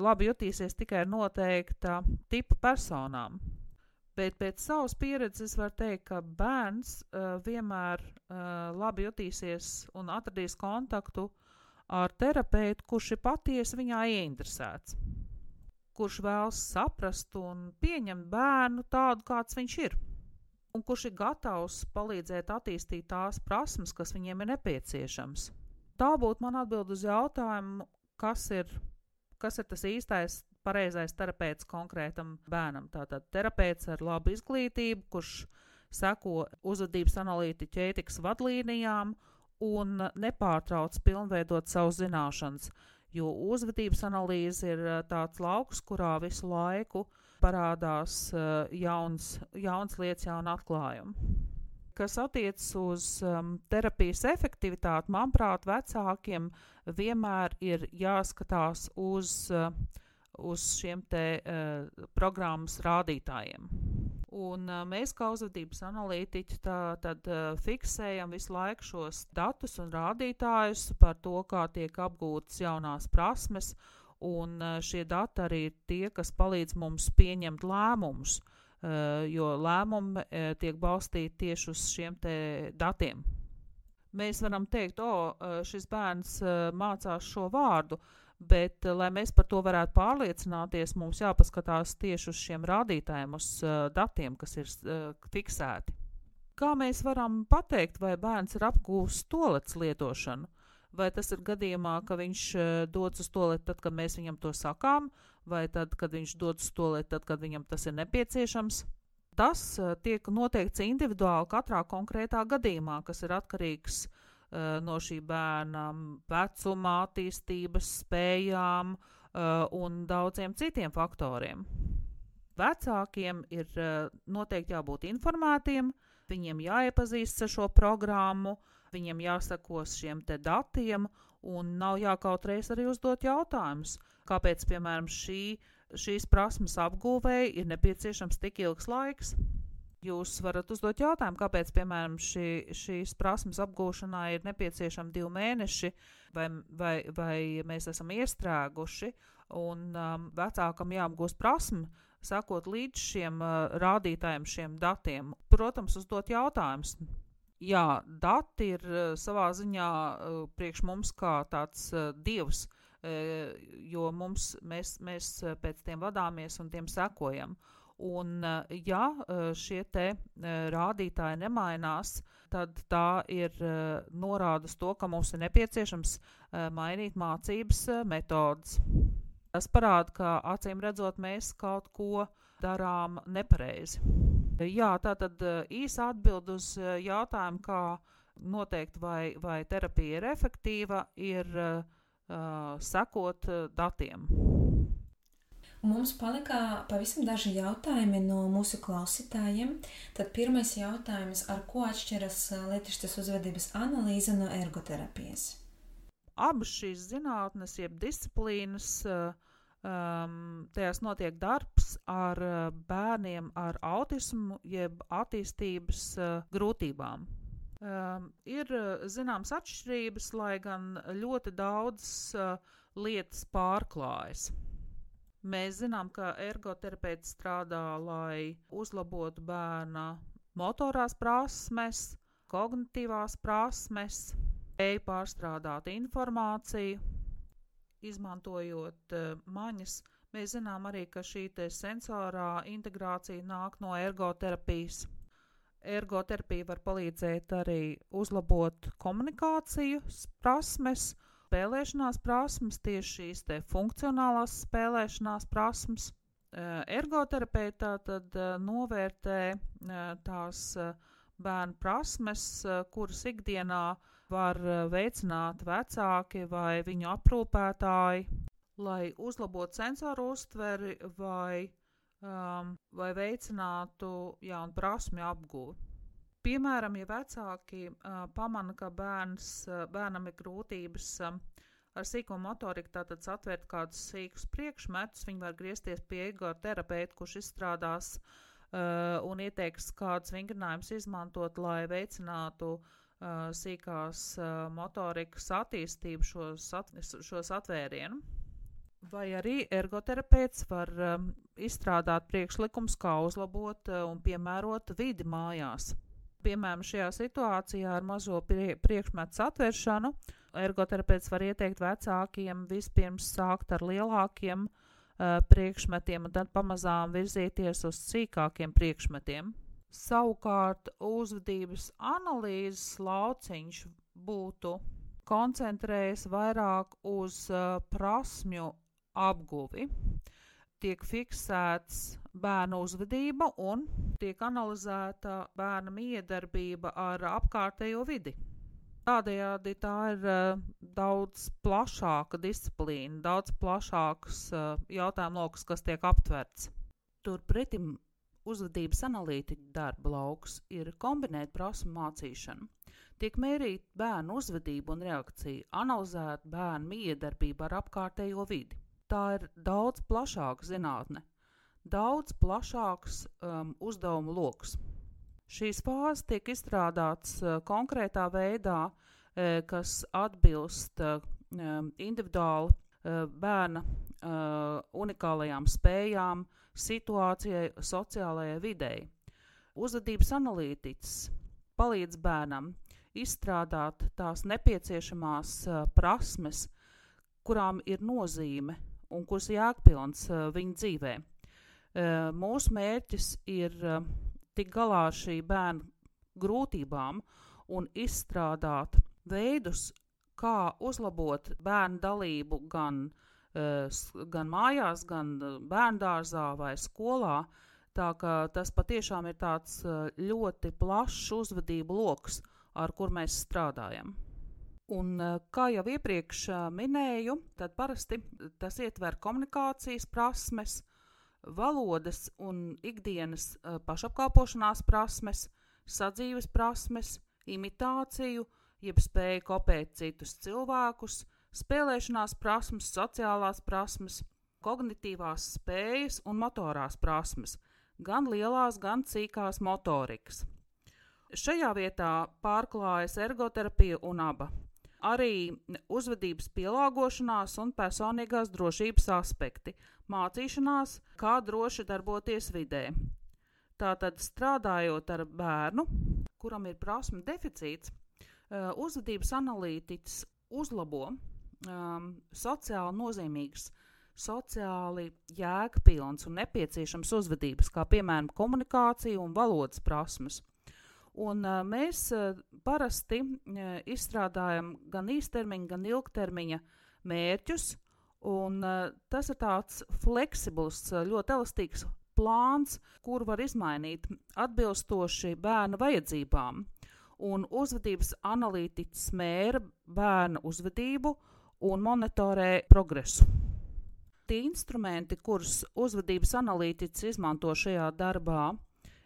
labi jutīsies tikai noteikta tipa personām. Bet pēc savas pieredzes var teikt, ka bērns vienmēr labi jutīsies un atradīs kontaktu ar terapeitu, kurš ir patiesi viņā ieinteresēts, kurš vēlas saprast un pieņemt bērnu tādu, kāds viņš ir, un kurš ir gatavs palīdzēt attīstīt tās prasmes, kas viņiem ir nepieciešams. Tā būtu man atbild uz jautājumu, kas ir tas īstais, pareizais terapeits konkrētam bērnam. Tātad terapeits ar labu izglītību, kurš seko uzvedības analītiķa ētikas vadlīnijām un nepārtrauc pilnveidot savu zināšanas, jo uzvedības analīze ir tāds lauks, kurā visu laiku parādās jauns lietas, jauna atklājumi. Kas attiecas uz terapijas efektivitāti, manuprāt, vecākiem vienmēr ir jāskatās uz šiem te programmas rādītājiem. Un mēs kā uzvedības analītiķi tad fiksējam visu laiku šos datus un rādītājus par to, kā tiek apgūtas jaunās prasmes, un šie dati arī ir tie, kas palīdz mums pieņemt lēmumus, jo lēmumi tiek balstīti tieši uz šiem te datiem. Mēs varam teikt, šis bērns mācās šo vārdu, bet, lai mēs par to varētu pārliecināties, mums jāpaskatās tieši uz šiem rādītājiem, uz datiem, kas ir fiksēti. Kā mēs varam pateikt, vai bērns ir apgūst toaletes lietošanu? vai tas ir gadījumā, ka viņš dodas uz tualeti tad, kad mēs viņam to sakām, vai tad, kad viņš dodas uz tualeti tad, kad viņam tas ir nepieciešams. Tas tiek noteikts individuāli katrā konkrētā gadījumā, kas ir atkarīgs no šī bērna vecuma, attīstības, spējām un daudziem citiem faktoriem. Vecākiem ir noteikti jābūt informētiem, viņiem jāiepazīst ar šo programmu, viņiem jāsakos šiem te datiem un nav jākautreiz arī uzdot jautājumus. Kāpēc, piemēram, šīs prasmes apgūvēji ir nepieciešams tik ilgs laiks? Jūs varat uzdot jautājumu, kāpēc, piemēram, šīs prasmes apgūšanā ir nepieciešami 2 mēneši, vai mēs esam iestrēguši, un vecākam jāapgūst prasmi, sakot līdz šiem rādītājiem, šiem datiem. Protams, uzdot jautājumus. Jā, dati ir savā ziņā priekš mums kā tāds dievs, jo mēs pēc tiem vadāmies un tiem sekojam. Un ja šie te rādītāji nemainās, tad tā ir norādes to, ka mums ir nepieciešams mainīt mācības metodas. Tas parāda, ka acīm redzot mēs kaut ko darām nepareizi. Jā, tātad īsa atbild uz jautājumu, kā noteikt, vai terapija ir efektīva, ir sekot datiem. Mums palika pavisam daži jautājumi no mūsu klausītājiem. Tad pirmais jautājums, ar ko atšķiras lietišķas uzvedības analīze no ergoterapijas? Abas šīs zinātnes, jeb disciplīnas, tajās notiek darbs ar bērniem ar autismu, jeb attīstības grūtībām. Ir zināmas atšķirības, lai gan ļoti daudz lietas pārklājas. Mēs zinām, ka ergoterapeits strādā, lai uzlabotu bērna motorās prasmes, kognitīvās prasmes, spēju pārstrādāt informāciju, izmantojot maņas. Mēs zinām arī, ka šī te sensorā integrācija nāk no ergoterapijas. Ergoterapija var palīdzēt arī uzlabot komunikācijas prasmes, spēlēšanās prasmes, tieši šīs te funkcionālās spēlēšanās prasmes. Ergoterapeitā tad novērtē tās bērnu prasmes, kuras ikdienā var veicināt vecāki vai viņu aprūpētāji, lai uzlabotu sensoru uztveri vai veicinātu jaunu prasmju apgūvi. Piemēram, ja vecāki pamana, ka bērnam ir grūtības ar sīko motoriku, tātad satvērt kādus sīkus priekšmetus, viņi var griezties pie ergoterapeita, kurš izstrādās un ieteiks kādus vingrinājumus izmantot, lai veicinātu sīkās motorikas attīstību šos atvērienu. Vai arī ergoterapeits var izstrādāt priekšlikums, kā uzlabot un piemērot vidi mājās. Piemēram, šajā situācijā ar mazo priekšmetu satvēršanu ergoterapeits var ieteikt vecākiem vispirms sākt ar lielākiem priekšmetiem un tad pamazām virzīties uz sīkākiem priekšmetiem. Savukārt uzvedības analīzes lauciņš būtu koncentrējies vairāk uz prasmju apguvi. Tiek fiksēts bērna uzvedība un tiek analizēta bērna miedarbība ar apkārtējo vidi. Tādējādi tā ir daudz plašāka disciplīna, daudz plašāks jautājumu lokus, kas tiek aptverts. Turpretim uzvedības analītiķa darba lauks ir kombinēt prasmu mācīšanu. Tiek mērīt bērnu uzvedību un reakciju, analizēt bērnu miedarbību ar apkārtējo vidi. Tā ir daudz plašāka zinātne, daudz plašāks uzdevumu loks. Šīs fāzes tiek izstrādāts konkrētā veidā, kas atbilst individuāli bērna unikālajām spējām, situācijai, sociālajai videi. Uzvedības analītiķis palīdz bērnam izstrādāt tās nepieciešamās prasmes, kurām ir nozīme un kuras jēgpilns viņa dzīvē. Mūsu mērķis ir tikt galā ar šī bērna grūtībām un izstrādāt veidus, kā uzlabot bērnu dalību gan mājās, gan bērndārzā vai skolā. Tā ka tas patiešām ir tāds ļoti plašs uzvedību loks, ar kur mēs strādājam. Un, kā jau iepriekš minēju, tad parasti tas ietver komunikācijas prasmes, valodas un ikdienas pašapkalpošanās prasmes, sadzīves prasmes, imitāciju, jeb spēju kopēt citus cilvēkus, spēlēšanās prasmes, sociālās prasmes, kognitīvās spējas un motorās prasmes, gan lielās, gan cīkās motorikas. Šajā vietā pārklājas ergoterapija un aba. Arī uzvedības pielāgošanās un personīgās drošības aspekti, mācīšanās, kā droši darboties vidē. Tātad strādājot ar bērnu, kuram ir prasmu deficīts, uzvedības analītiķis uzlabo sociāli nozīmīgas, sociāli jēgpilns un nepieciešams uzvedības, kā piemēram komunikācija un valodas prasmes. Un mēs parasti izstrādājam gan īstermiņa, gan ilgtermiņa mērķus, un tas ir tāds fleksibls, ļoti elastīgs plāns, kur var izmainīt atbilstoši bērna vajadzībām. Un uzvedības analītiķis mēra bērna uzvedību un monitorē progresu. Tie instrumenti, kurus uzvedības analītiķis izmanto šajā darbā,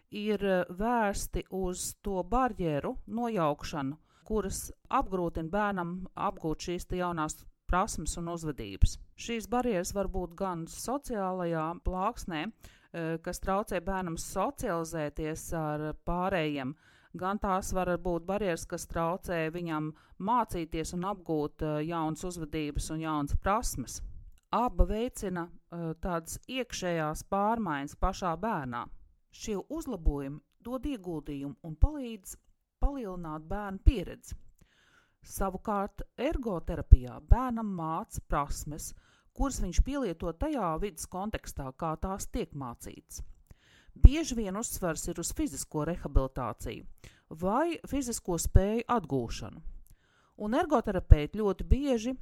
ir vērsti uz to barjeru nojaukšanu, kuras apgrūtina bērnam apgūt šīs jaunās prasmes un uzvedības. Šīs barjeras var būt gan sociālajā plāksnē, kas traucē bērnam socializēties ar pārējiem, gan tās var būt barjeras, kas traucē viņam mācīties un apgūt jaunas uzvedības un jaunas prasmes. Aba veicina tādas iekšējās pārmaiņas pašā bērnā. Šie uzlabojumi dod ieguldījumu un palīdz palielināt bērnu pieredzi. Savukārt ergoterapijā bērnam māca prasmes, kuras viņš pielieto tajā vidas kontekstā, kā tās tiek mācītas. Bieži vien uzsvars ir uz fizisko rehabilitāciju vai fizisko spēju atgūšanu. Un ergoterapeiti ļoti bieži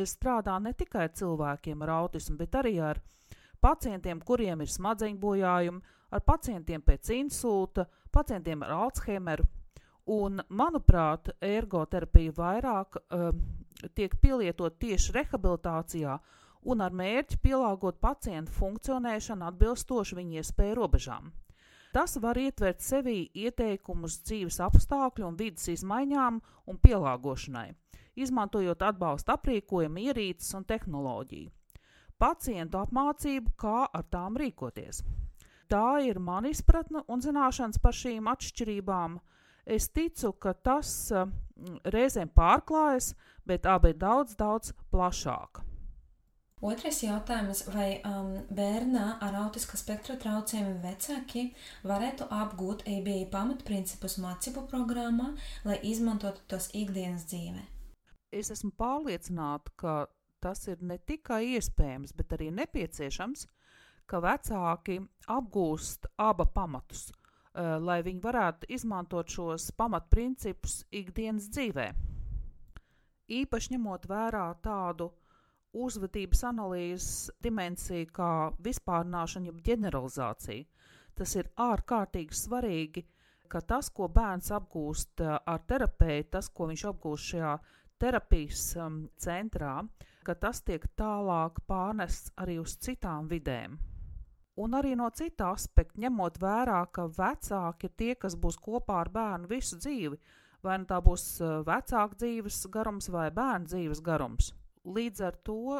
strādā ne tikai ar cilvēkiem ar autismu, bet arī ar pacientiem, kuriem ir smadzeņu bojājumi, ar pacientiem pēc insulta, pacientiem ar Alzheimeru. Un, manuprāt, ergoterapija vairāk tiek pielietot tieši rehabilitācijā un ar mērķi pielāgot pacientu funkcionēšanu atbilstoši viņu iespēju robežām. Tas var ietvert sevī ieteikumus dzīves apstākļu un vidas izmaiņām un pielāgošanai, izmantojot atbalsta aprīkojumu, ierīces un tehnoloģiju. Pacientu apmācību, kā ar tām rīkoties. Tā ir mana izpratne un zināšanas par šīm atšķirībām. Es ticu, ka tas reizēm pārklājas, bet abi ir daudz, daudz plašāk. Otrais jautājums, vai bērnā ar autiska spektra traucējumiem vecāki varētu apgūt ABA pamatprincipus mācību programmā, lai izmantotu tos ikdienas dzīvē? Es esmu pārliecināta, ka tas ir ne tikai iespējams, bet arī nepieciešams, ka vecāki apgūst aba pamatus, lai viņi varētu izmantot šos pamatprincipus ikdienas dzīvē. Īpaši ņemot vērā tādu uzvedības analīzes dimensiju kā vispārināšana, jeb ģeneralizācija. Tas ir ārkārtīgi svarīgi, ka tas, ko bērns apgūst ar terapeitu, tas, ko viņš apgūst šajā terapijas centrā, ka tas tiek tālāk pārnests arī uz citām vidēm. Un arī no cita aspekta, ņemot vērā, ka vecāki ir tie, kas būs kopā ar bērnu visu dzīvi, vai nu tā būs vecāka dzīves garums vai bērnu dzīves garums. Līdz ar to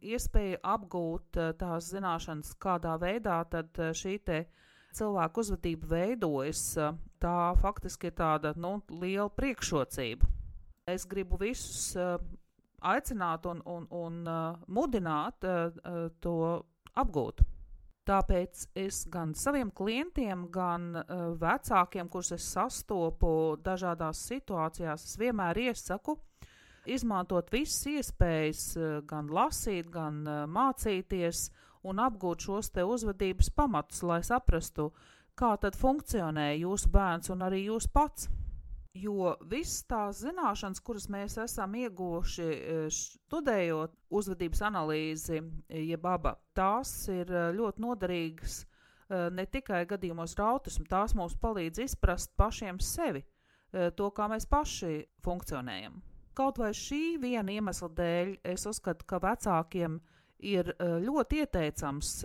iespēja apgūt tās zināšanas, kādā veidā tad šī te cilvēku uzvedība veidojas, tā faktiski ir tāda liela priekšrocība. Es gribu visus aicināt un mudināt to apgūt. Tāpēc es gan saviem klientiem, gan vecākiem, kurus es sastopu dažādās situācijās, es vienmēr iesaku izmantot visas iespējas, gan lasīt, gan mācīties un apgūt šos te uzvedības pamatus, lai saprastu, kā tad funkcionē jūsu bērns un arī jūs pats. Jo viss tās zināšanas, kuras mēs esam ieguvuši studējot uzvedības analīzi, jeb ABA, tās ir ļoti noderīgas ne tikai gadījumos ar autismu, tās mums palīdz izprast pašiem sevi, to, kā mēs paši funkcionējam. Kaut vai šī viena iemesla dēļ es uzskatu, ka vecākiem ir ļoti ieteicams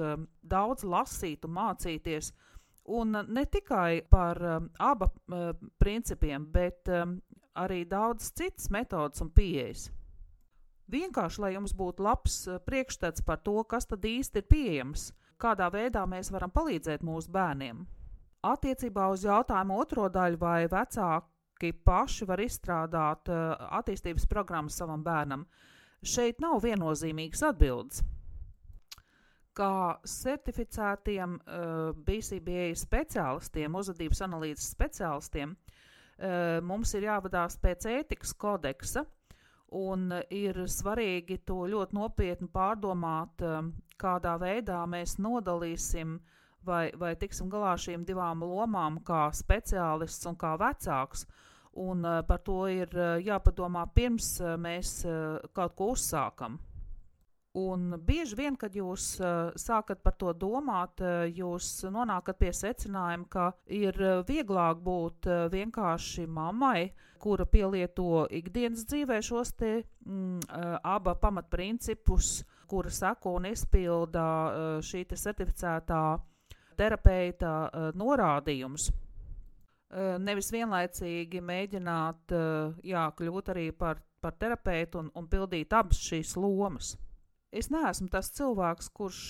daudz lasīt un mācīties, un ne tikai par ABA principiem, bet arī daudz citas metodas un pieejas. Vienkārši, lai jums būtu labs priekšstats par to, kas tad īsti ir pieejams, kādā veidā mēs varam palīdzēt mūsu bērniem. Attiecībā uz jautājumu otro daļu, vai vecāki paši var izstrādāt attīstības programmas savam bērnam, šeit nav viennozīmīgas atbildes. Kā certificētiem BCBA speciālistiem, uzvedības analīzes speciālistiem, mums ir jāvadās pēc ētikas kodeksa, un ir svarīgi to ļoti nopietni pārdomāt, kādā veidā mēs nodalīsim vai tiksim galā šīm divām lomām, kā speciālists un kā vecāks. Un par to ir jāpadomā pirms mēs kaut ko uzsākam. Un bieži vien, kad jūs sākat par to domāt, jūs nonākat pie secinājuma, ka ir vieglāk būt vienkārši mammai, kura pielieto ikdienas dzīvē šos te ABA pamatprincipus, kura seko un izpilda šī te certificētā terapeita norādījumus. Nevis vienlaicīgi mēģināt kļūt arī par terapeitu un pildīt abas šīs lomas. Es neesmu tas cilvēks, kurš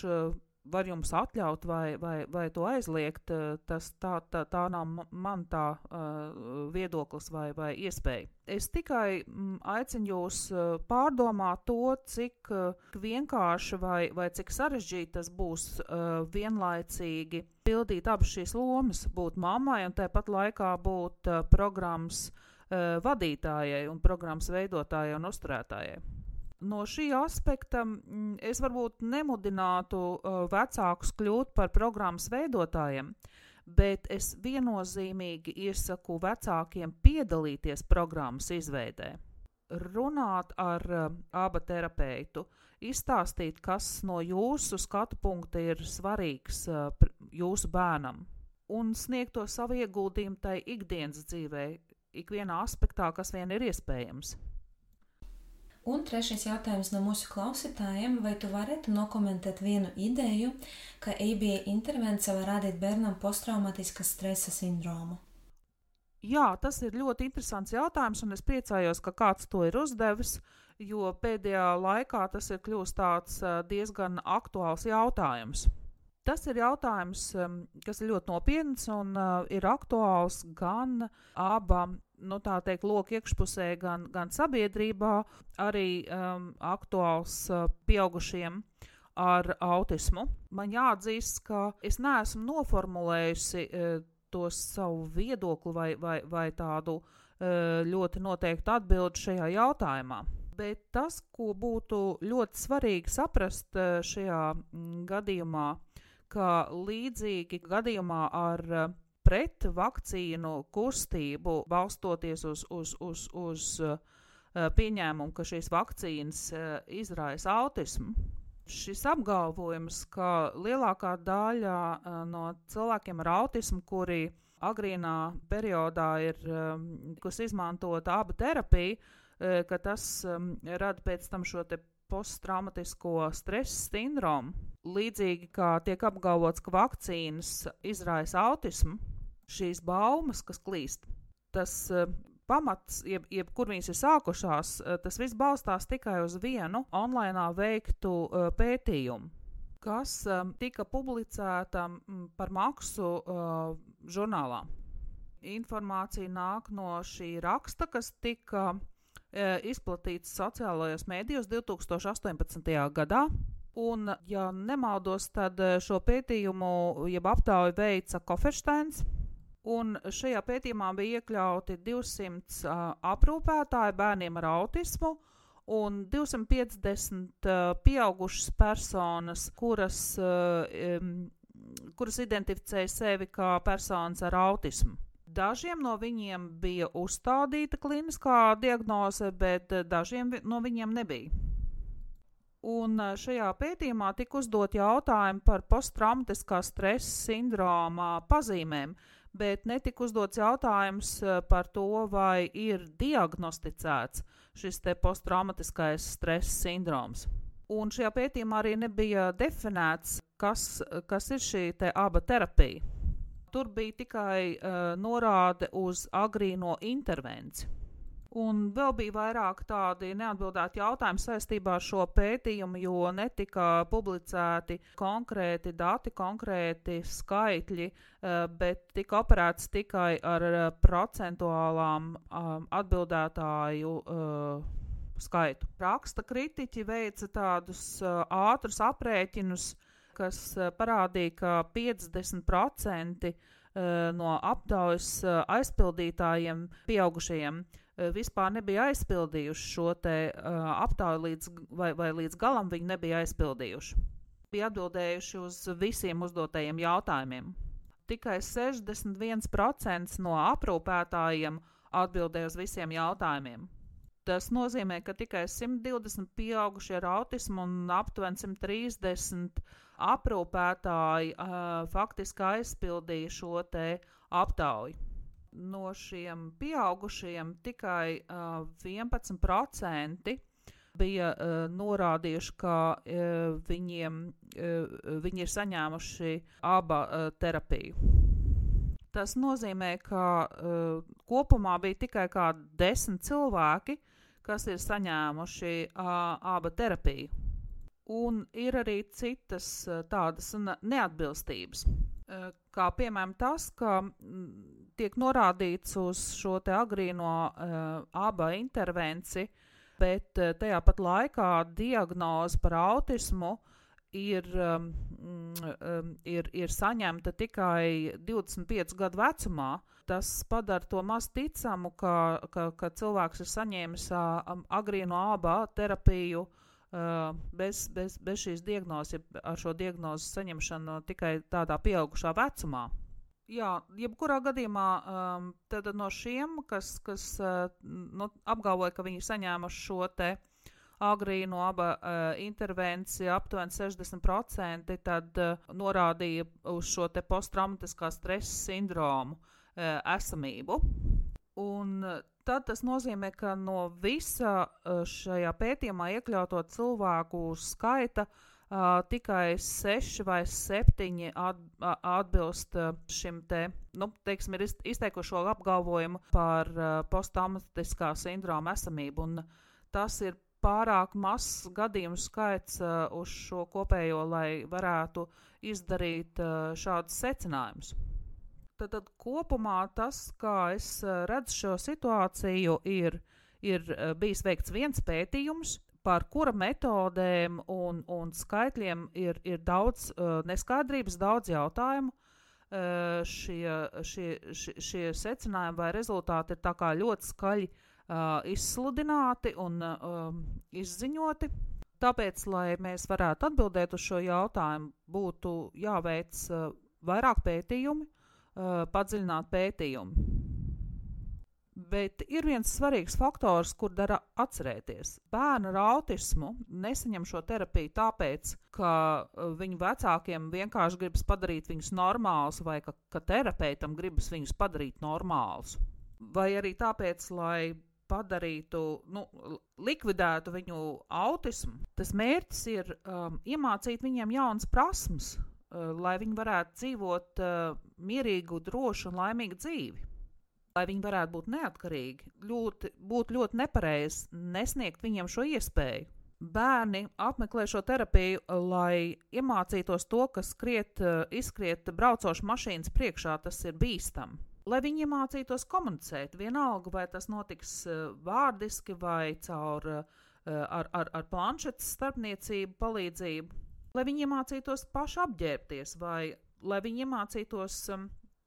var jums atļaut vai to aizliegt, tā nav man tā viedoklis vai iespēja. Es tikai aicinu jūs pārdomāt to, cik vienkārši vai cik sarežģīti tas būs vienlaicīgi pildīt abas šīs lomas, būt mammai un tāpat laikā būt programmas vadītājai un programmas veidotājai un uzturētājai. No šī aspekta es varbūt nemudinātu vecākus kļūt par programmas veidotājiem, bet es viennozīmīgi iesaku vecākiem piedalīties programmas izveidē. Runāt ar ABA terapeitu, izstāstīt, kas no jūsu skatu punkta ir svarīgs jūsu bērnam, un sniegt to savu ieguldījumu tai ikdienas dzīvē, ikvienā aspektā, kas vien ir iespējams. Un trešais jautājums no mūsu klausītājiem, vai tu varētu nokomentēt vienu ideju, ka ABA intervencija var radīt bērnam posttraumatiska stresa sindromu? Jā, tas ir ļoti interesants jautājums, un es priecājos, ka kāds to ir uzdevis, jo pēdējā laikā tas ir kļūst tāds diezgan aktuāls jautājums. Tas ir jautājums, kas ir ļoti nopietns un ir aktuāls gan ABA, tā teikt, loka iekšpusē, gan sabiedrībā, arī aktuāls pieaugušiem ar autismu. Man jāatzīst, ka es neesmu noformulējusi to savu viedokli vai tādu ļoti noteiktu atbildi šajā jautājumā. Bet tas, ko būtu ļoti svarīgi saprast šajā gadījumā, ka līdzīgi gadījumā ar pret vakcīnu kustību, balstoties uz pieņēmumu, ka šīs vakcīnas izraisa autismu, šis apgalvojums, ka lielākā daļa no cilvēkiem ar autismu, kuri agrīnā periodā ir izmantota ABA terapija, ka tas rada pēc tam šo te posttraumatisko stresa sindromu. Līdzīgi kā tiek apgalvots, ka vakcīnas izraisa autismu, šīs baumas, kas klīst, tas pamats, kur viņas ir sākušās, tas viss balstās tikai uz vienu online veiktu pētījumu, kas tika publicēta par maksu žurnālā. Informācija nāk no šī raksta, kas tika izplatīts sociālajos mēdījos 2018. gadā. Un, ja nemaldos, tad šo pētījumu, jeb aptauju veica Koffersteins, un šajā pētījumā bija iekļauti 200 aprūpētāji bērniem ar autismu un 250 pieaugušas personas, kuras identificēja sevi kā personas ar autismu. Dažiem no viņiem bija uzstādīta kliniskā diagnoze, bet dažiem no viņiem nebija. Un šajā pētījumā tika uzdot jautājumi par posttraumatiskā stresa sindroma pazīmēm, bet netika uzdots jautājums par to, vai ir diagnosticēts šis te posttraumatiskais stresa sindroms. Un šajā pētījumā arī nebija definēts, kas ir šī te ABA terapija. Tur bija tikai norāde uz agrīno intervenciju. Un vēl bija vairāk tādi neatbildēti jautājumi saistībā ar šo pētījumu, jo netika publicēti konkrēti dati, konkrēti skaitļi, bet tika operēts tikai ar procentuālām atbildētāju skaitu. Raksta kritiķi veica tādus ātrus aprēķinus, kas parādīja, ka 50% no aptaujas aizpildītājiem pieaugušajiem vispār nebija aizpildījuši šo te aptauju vai līdz galam viņi nebija aizpildījuši. Bija atbildējuši uz visiem uzdotajiem jautājumiem. Tikai 61% no aprūpētājiem atbildēja uz visiem jautājumiem. Tas nozīmē, ka tikai 120 pieaugušie ar autismu un aptuveni 130 aprūpētāji faktiski aizpildīja šo te aptauju. No šiem pieaugušiem tikai 11% bija norādījuši, ka viņi ir saņēmuši ABA terapiju. Tas nozīmē, ka kopumā bija tikai kā 10 cilvēki, kas ir saņēmuši ABA terapiju. Un ir arī citas tādas neatbilstības, kā piemēram tas, ka tiek norādīts uz šo te agrīno ABA intervenciju, bet tajā pat laikā diagnoze par autismu ir saņemta tikai 25 gadu vecumā. Tas padara to maz ticamu, ka cilvēks ir saņēmis agrīno ABA terapiju bez šīs diagnozes, ar šo diagnozi saņemšanu tikai tādā pieaugušā vecumā. Jā, jebkurā gadījumā tad no šiem, kas apgalvoja, ka viņi saņēmuši šo te agrīno ABA intervenciju, aptuveni 60%, tad norādīja uz šo te posttraumatiskā stresa sindromu esamību. Un tad tas nozīmē, ka no visa šajā pētījumā iekļauto cilvēku skaita tikai 6 vai 7 atbilst šim te, teiksim, ir izteikušo apgalvojumu par posttraumatiskā sindroma esamību. Un tas ir pārāk mazs gadījumu skaits uz šo kopējo, lai varētu izdarīt šādus secinājumus. Tad kopumā tas, kā es redzu šo situāciju, ir bijis veikts viens pētījums, par kura metodēm un skaitļiem ir daudz neskaidrības, daudz jautājumu. Šie secinājumi vai rezultāti ir tā kā ļoti skaļi izsludināti un izziņoti. Tāpēc, lai mēs varētu atbildēt uz šo jautājumu, būtu jāveic vairāk pētījumi, padziļināt pētījumu. Bet ir viens svarīgs faktors, kur dara atcerēties. Bērni ar autismu nesaņem šo terapiju tāpēc, ka viņu vecākiem vienkārši gribas padarīt viņus normālus vai ka terapeitam gribas viņus padarīt normālus. Vai arī tāpēc, lai padarītu, likvidētu viņu autismu. Tas mērķis ir iemācīt viņiem jaunas prasmes, lai viņi varētu dzīvot mierīgu, drošu un laimīgu dzīvi. Lai viņi varētu būt neatkarīgi, būtu ļoti nepareizi nesniegt viņiem šo iespēju. Bērni apmeklē šo terapiju, lai iemācītos to, ka izskriet braucošu mašīnas priekšā, tas ir bīstami. Lai viņi iemācītos komunicēt, vienalga, vai tas notiks vārdiski vai caur ar planšetes starpniecību palīdzību. Lai viņi iemācītos paši apģērbties, vai lai viņi iemācītos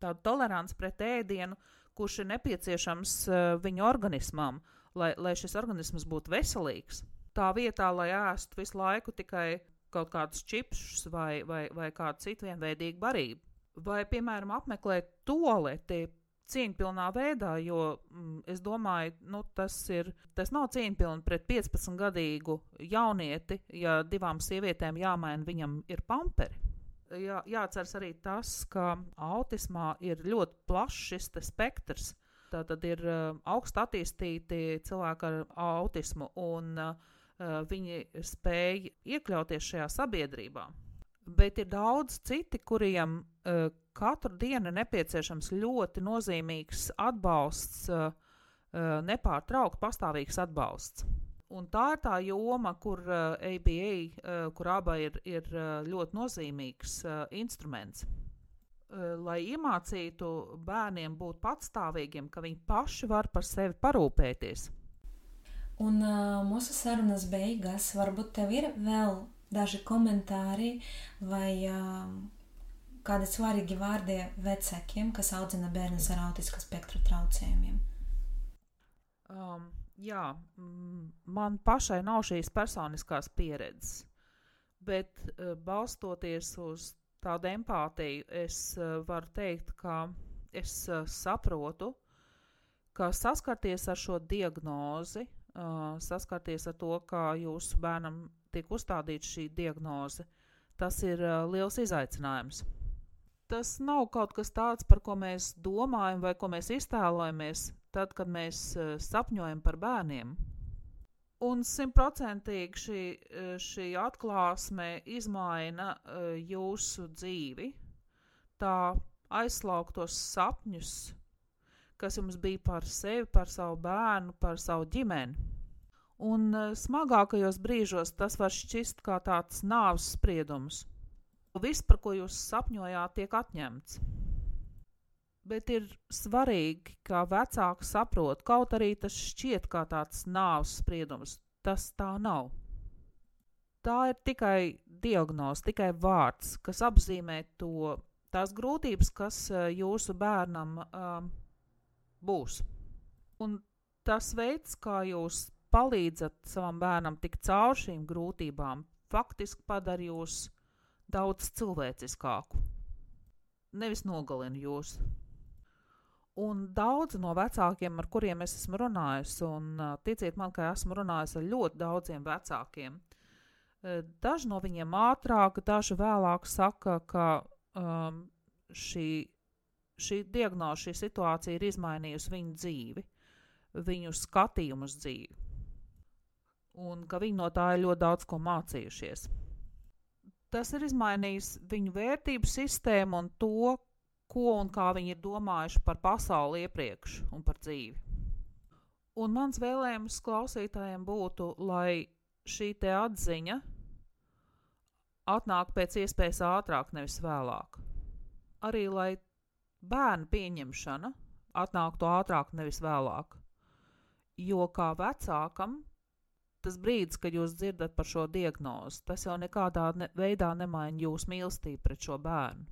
tādu toleranci pret ēdienu, kurš ir nepieciešams viņu organismam, lai šis organisms būtu veselīgs. Tā vietā, lai ēstu visu laiku tikai kaut kādus čipsus vai kādu citu vienveidīgu barību. Vai, piemēram, apmeklēt tualeti cieņpilnā veidā, jo es domāju, tas nav cieņpilni pret 15-gadīgu jaunieti, ja 2 sievietēm jāmaina viņam ir pamperi. Jāatceras arī tas, ka autismā ir ļoti plašs šis spektrs. Tātad ir augsti attīstīti cilvēki ar autismu, un viņi spēj iekļauties šajā sabiedrībā. Bet ir daudz citi, kuriem katru dienu ir nepieciešams ļoti nozīmīgs atbalsts, nepārtraukt pastāvīgs atbalsts. Un tā ir tā joma, kur ABA, kur ABA ir ļoti nozīmīgs instruments. Lai iemācītu bērniem būt patstāvīgiem, ka viņi paši var par sevi parūpēties. Un mūsu sarunas beigās varbūt tev ir vēl daži komentāri vai kādi svarīgi vārdi vecākiem, kas audzina bērnus ar autistiskā spektra traucējumiem? Jā, man pašai nav šīs personiskās pieredzes, bet balstoties uz tādu empātiju, es varu teikt, ka es saprotu, ka saskarties ar šo diagnozi, saskarties ar to, ka jūsu bērnam tiek uzstādīta šī diagnoze, tas ir liels izaicinājums. Tas nav kaut kas tāds, par ko mēs domājam vai ko mēs iztēlojamies tad, kad mēs sapņojam par bērniem. Un 100% šī atklāsme izmaina jūsu dzīvi, tā aizslauktos sapņus, kas jums bija par sevi, par savu bērnu, par savu ģimeni. Un smagākajos brīžos tas var šķist kā tāds nāves spriedums. Viss, par ko jūs sapņojāt, tiek atņemts. Bet ir svarīgi, ka vecāki saprot, kaut arī tas šķiet kā tāds nāves spriedums, tas tā nav. Tā ir tikai diagnoze, tikai vārds, kas apzīmē tās grūtības, kas jūsu bērnam būs. Un tas veids, kā jūs palīdzat savam bērnam tikt caur šīm grūtībām, faktiski padara jūs daudz cilvēciskāku. Nevis nogalina jūs. Un daudzi no vecākiem, ar kuriem es esmu runājis, un ticiet man, ka esmu runājis ar ļoti daudziem vecākiem, daži no viņiem ātrāk, daži vēlāk saka, ka šī diagnoze, šī situācija ir izmainījusi viņu dzīvi, viņu skatījumu uz dzīvi. Un ka viņi no tā ir ļoti daudz ko mācījušies. Tas ir izmainījis viņu vērtību sistēmu un to, ko un kā viņi ir domājuši par pasauli iepriekš un par dzīvi. Un mans vēlējums klausītājiem būtu, lai šī te atziņa atnāk pēc iespējas ātrāk, nevis vēlāk. Arī, lai bērnu pieņemšana atnāktu ātrāk, nevis vēlāk. Jo kā vecākam, tas brīdis, kad jūs dzirdat par šo diagnozi, tas jau nekādā veidā nemaina jūsu mīlestību pret šo bērnu.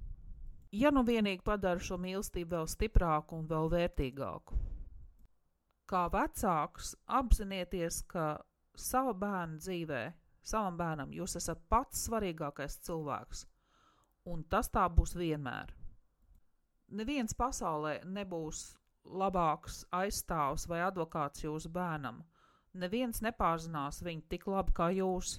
Ja nu vienīgi padara šo mīlestību vēl stiprāku un vēl vērtīgāku. Kā vecāks apzinieties, ka sava bērna dzīvē, savam bērnam jūs esat pats svarīgākais cilvēks, un tas tā būs vienmēr. Neviens pasaulē nebūs labāks aizstāvs vai advokāts jūsu bērnam. Neviens nepārzinās viņu tik labi kā jūs.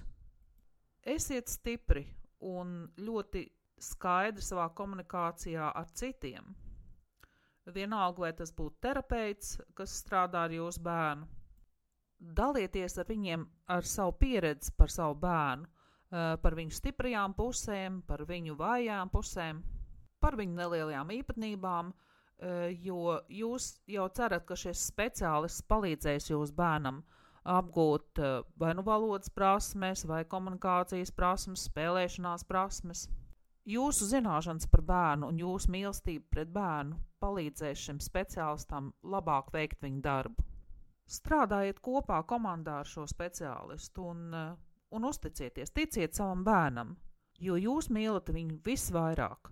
Esiet stipri un ļoti skaidri savā komunikācijā ar citiem. Vienalga, vai tas būtu terapeits, kas strādā ar jūsu bērnu. Dalieties ar viņiem ar savu pieredzi par savu bērnu, par viņu stiprajām pusēm, par viņu vājām pusēm, par viņu nelielajām īpatnībām, jo jūs jau cerat, ka šis speciālists palīdzēs jūsu bērnam apgūt vai nu valodas prasmes, vai komunikācijas prasmes, spēlēšanās prasmes. Jūsu zināšanas par bērnu un jūsu mīlestība pret bērnu palīdzēs šim speciālistam labāk veikt viņu darbu. Strādājiet kopā komandā ar šo speciālistu un uzticieties, ticiet savam bērnam, jo jūs mīlat viņu visvairāk.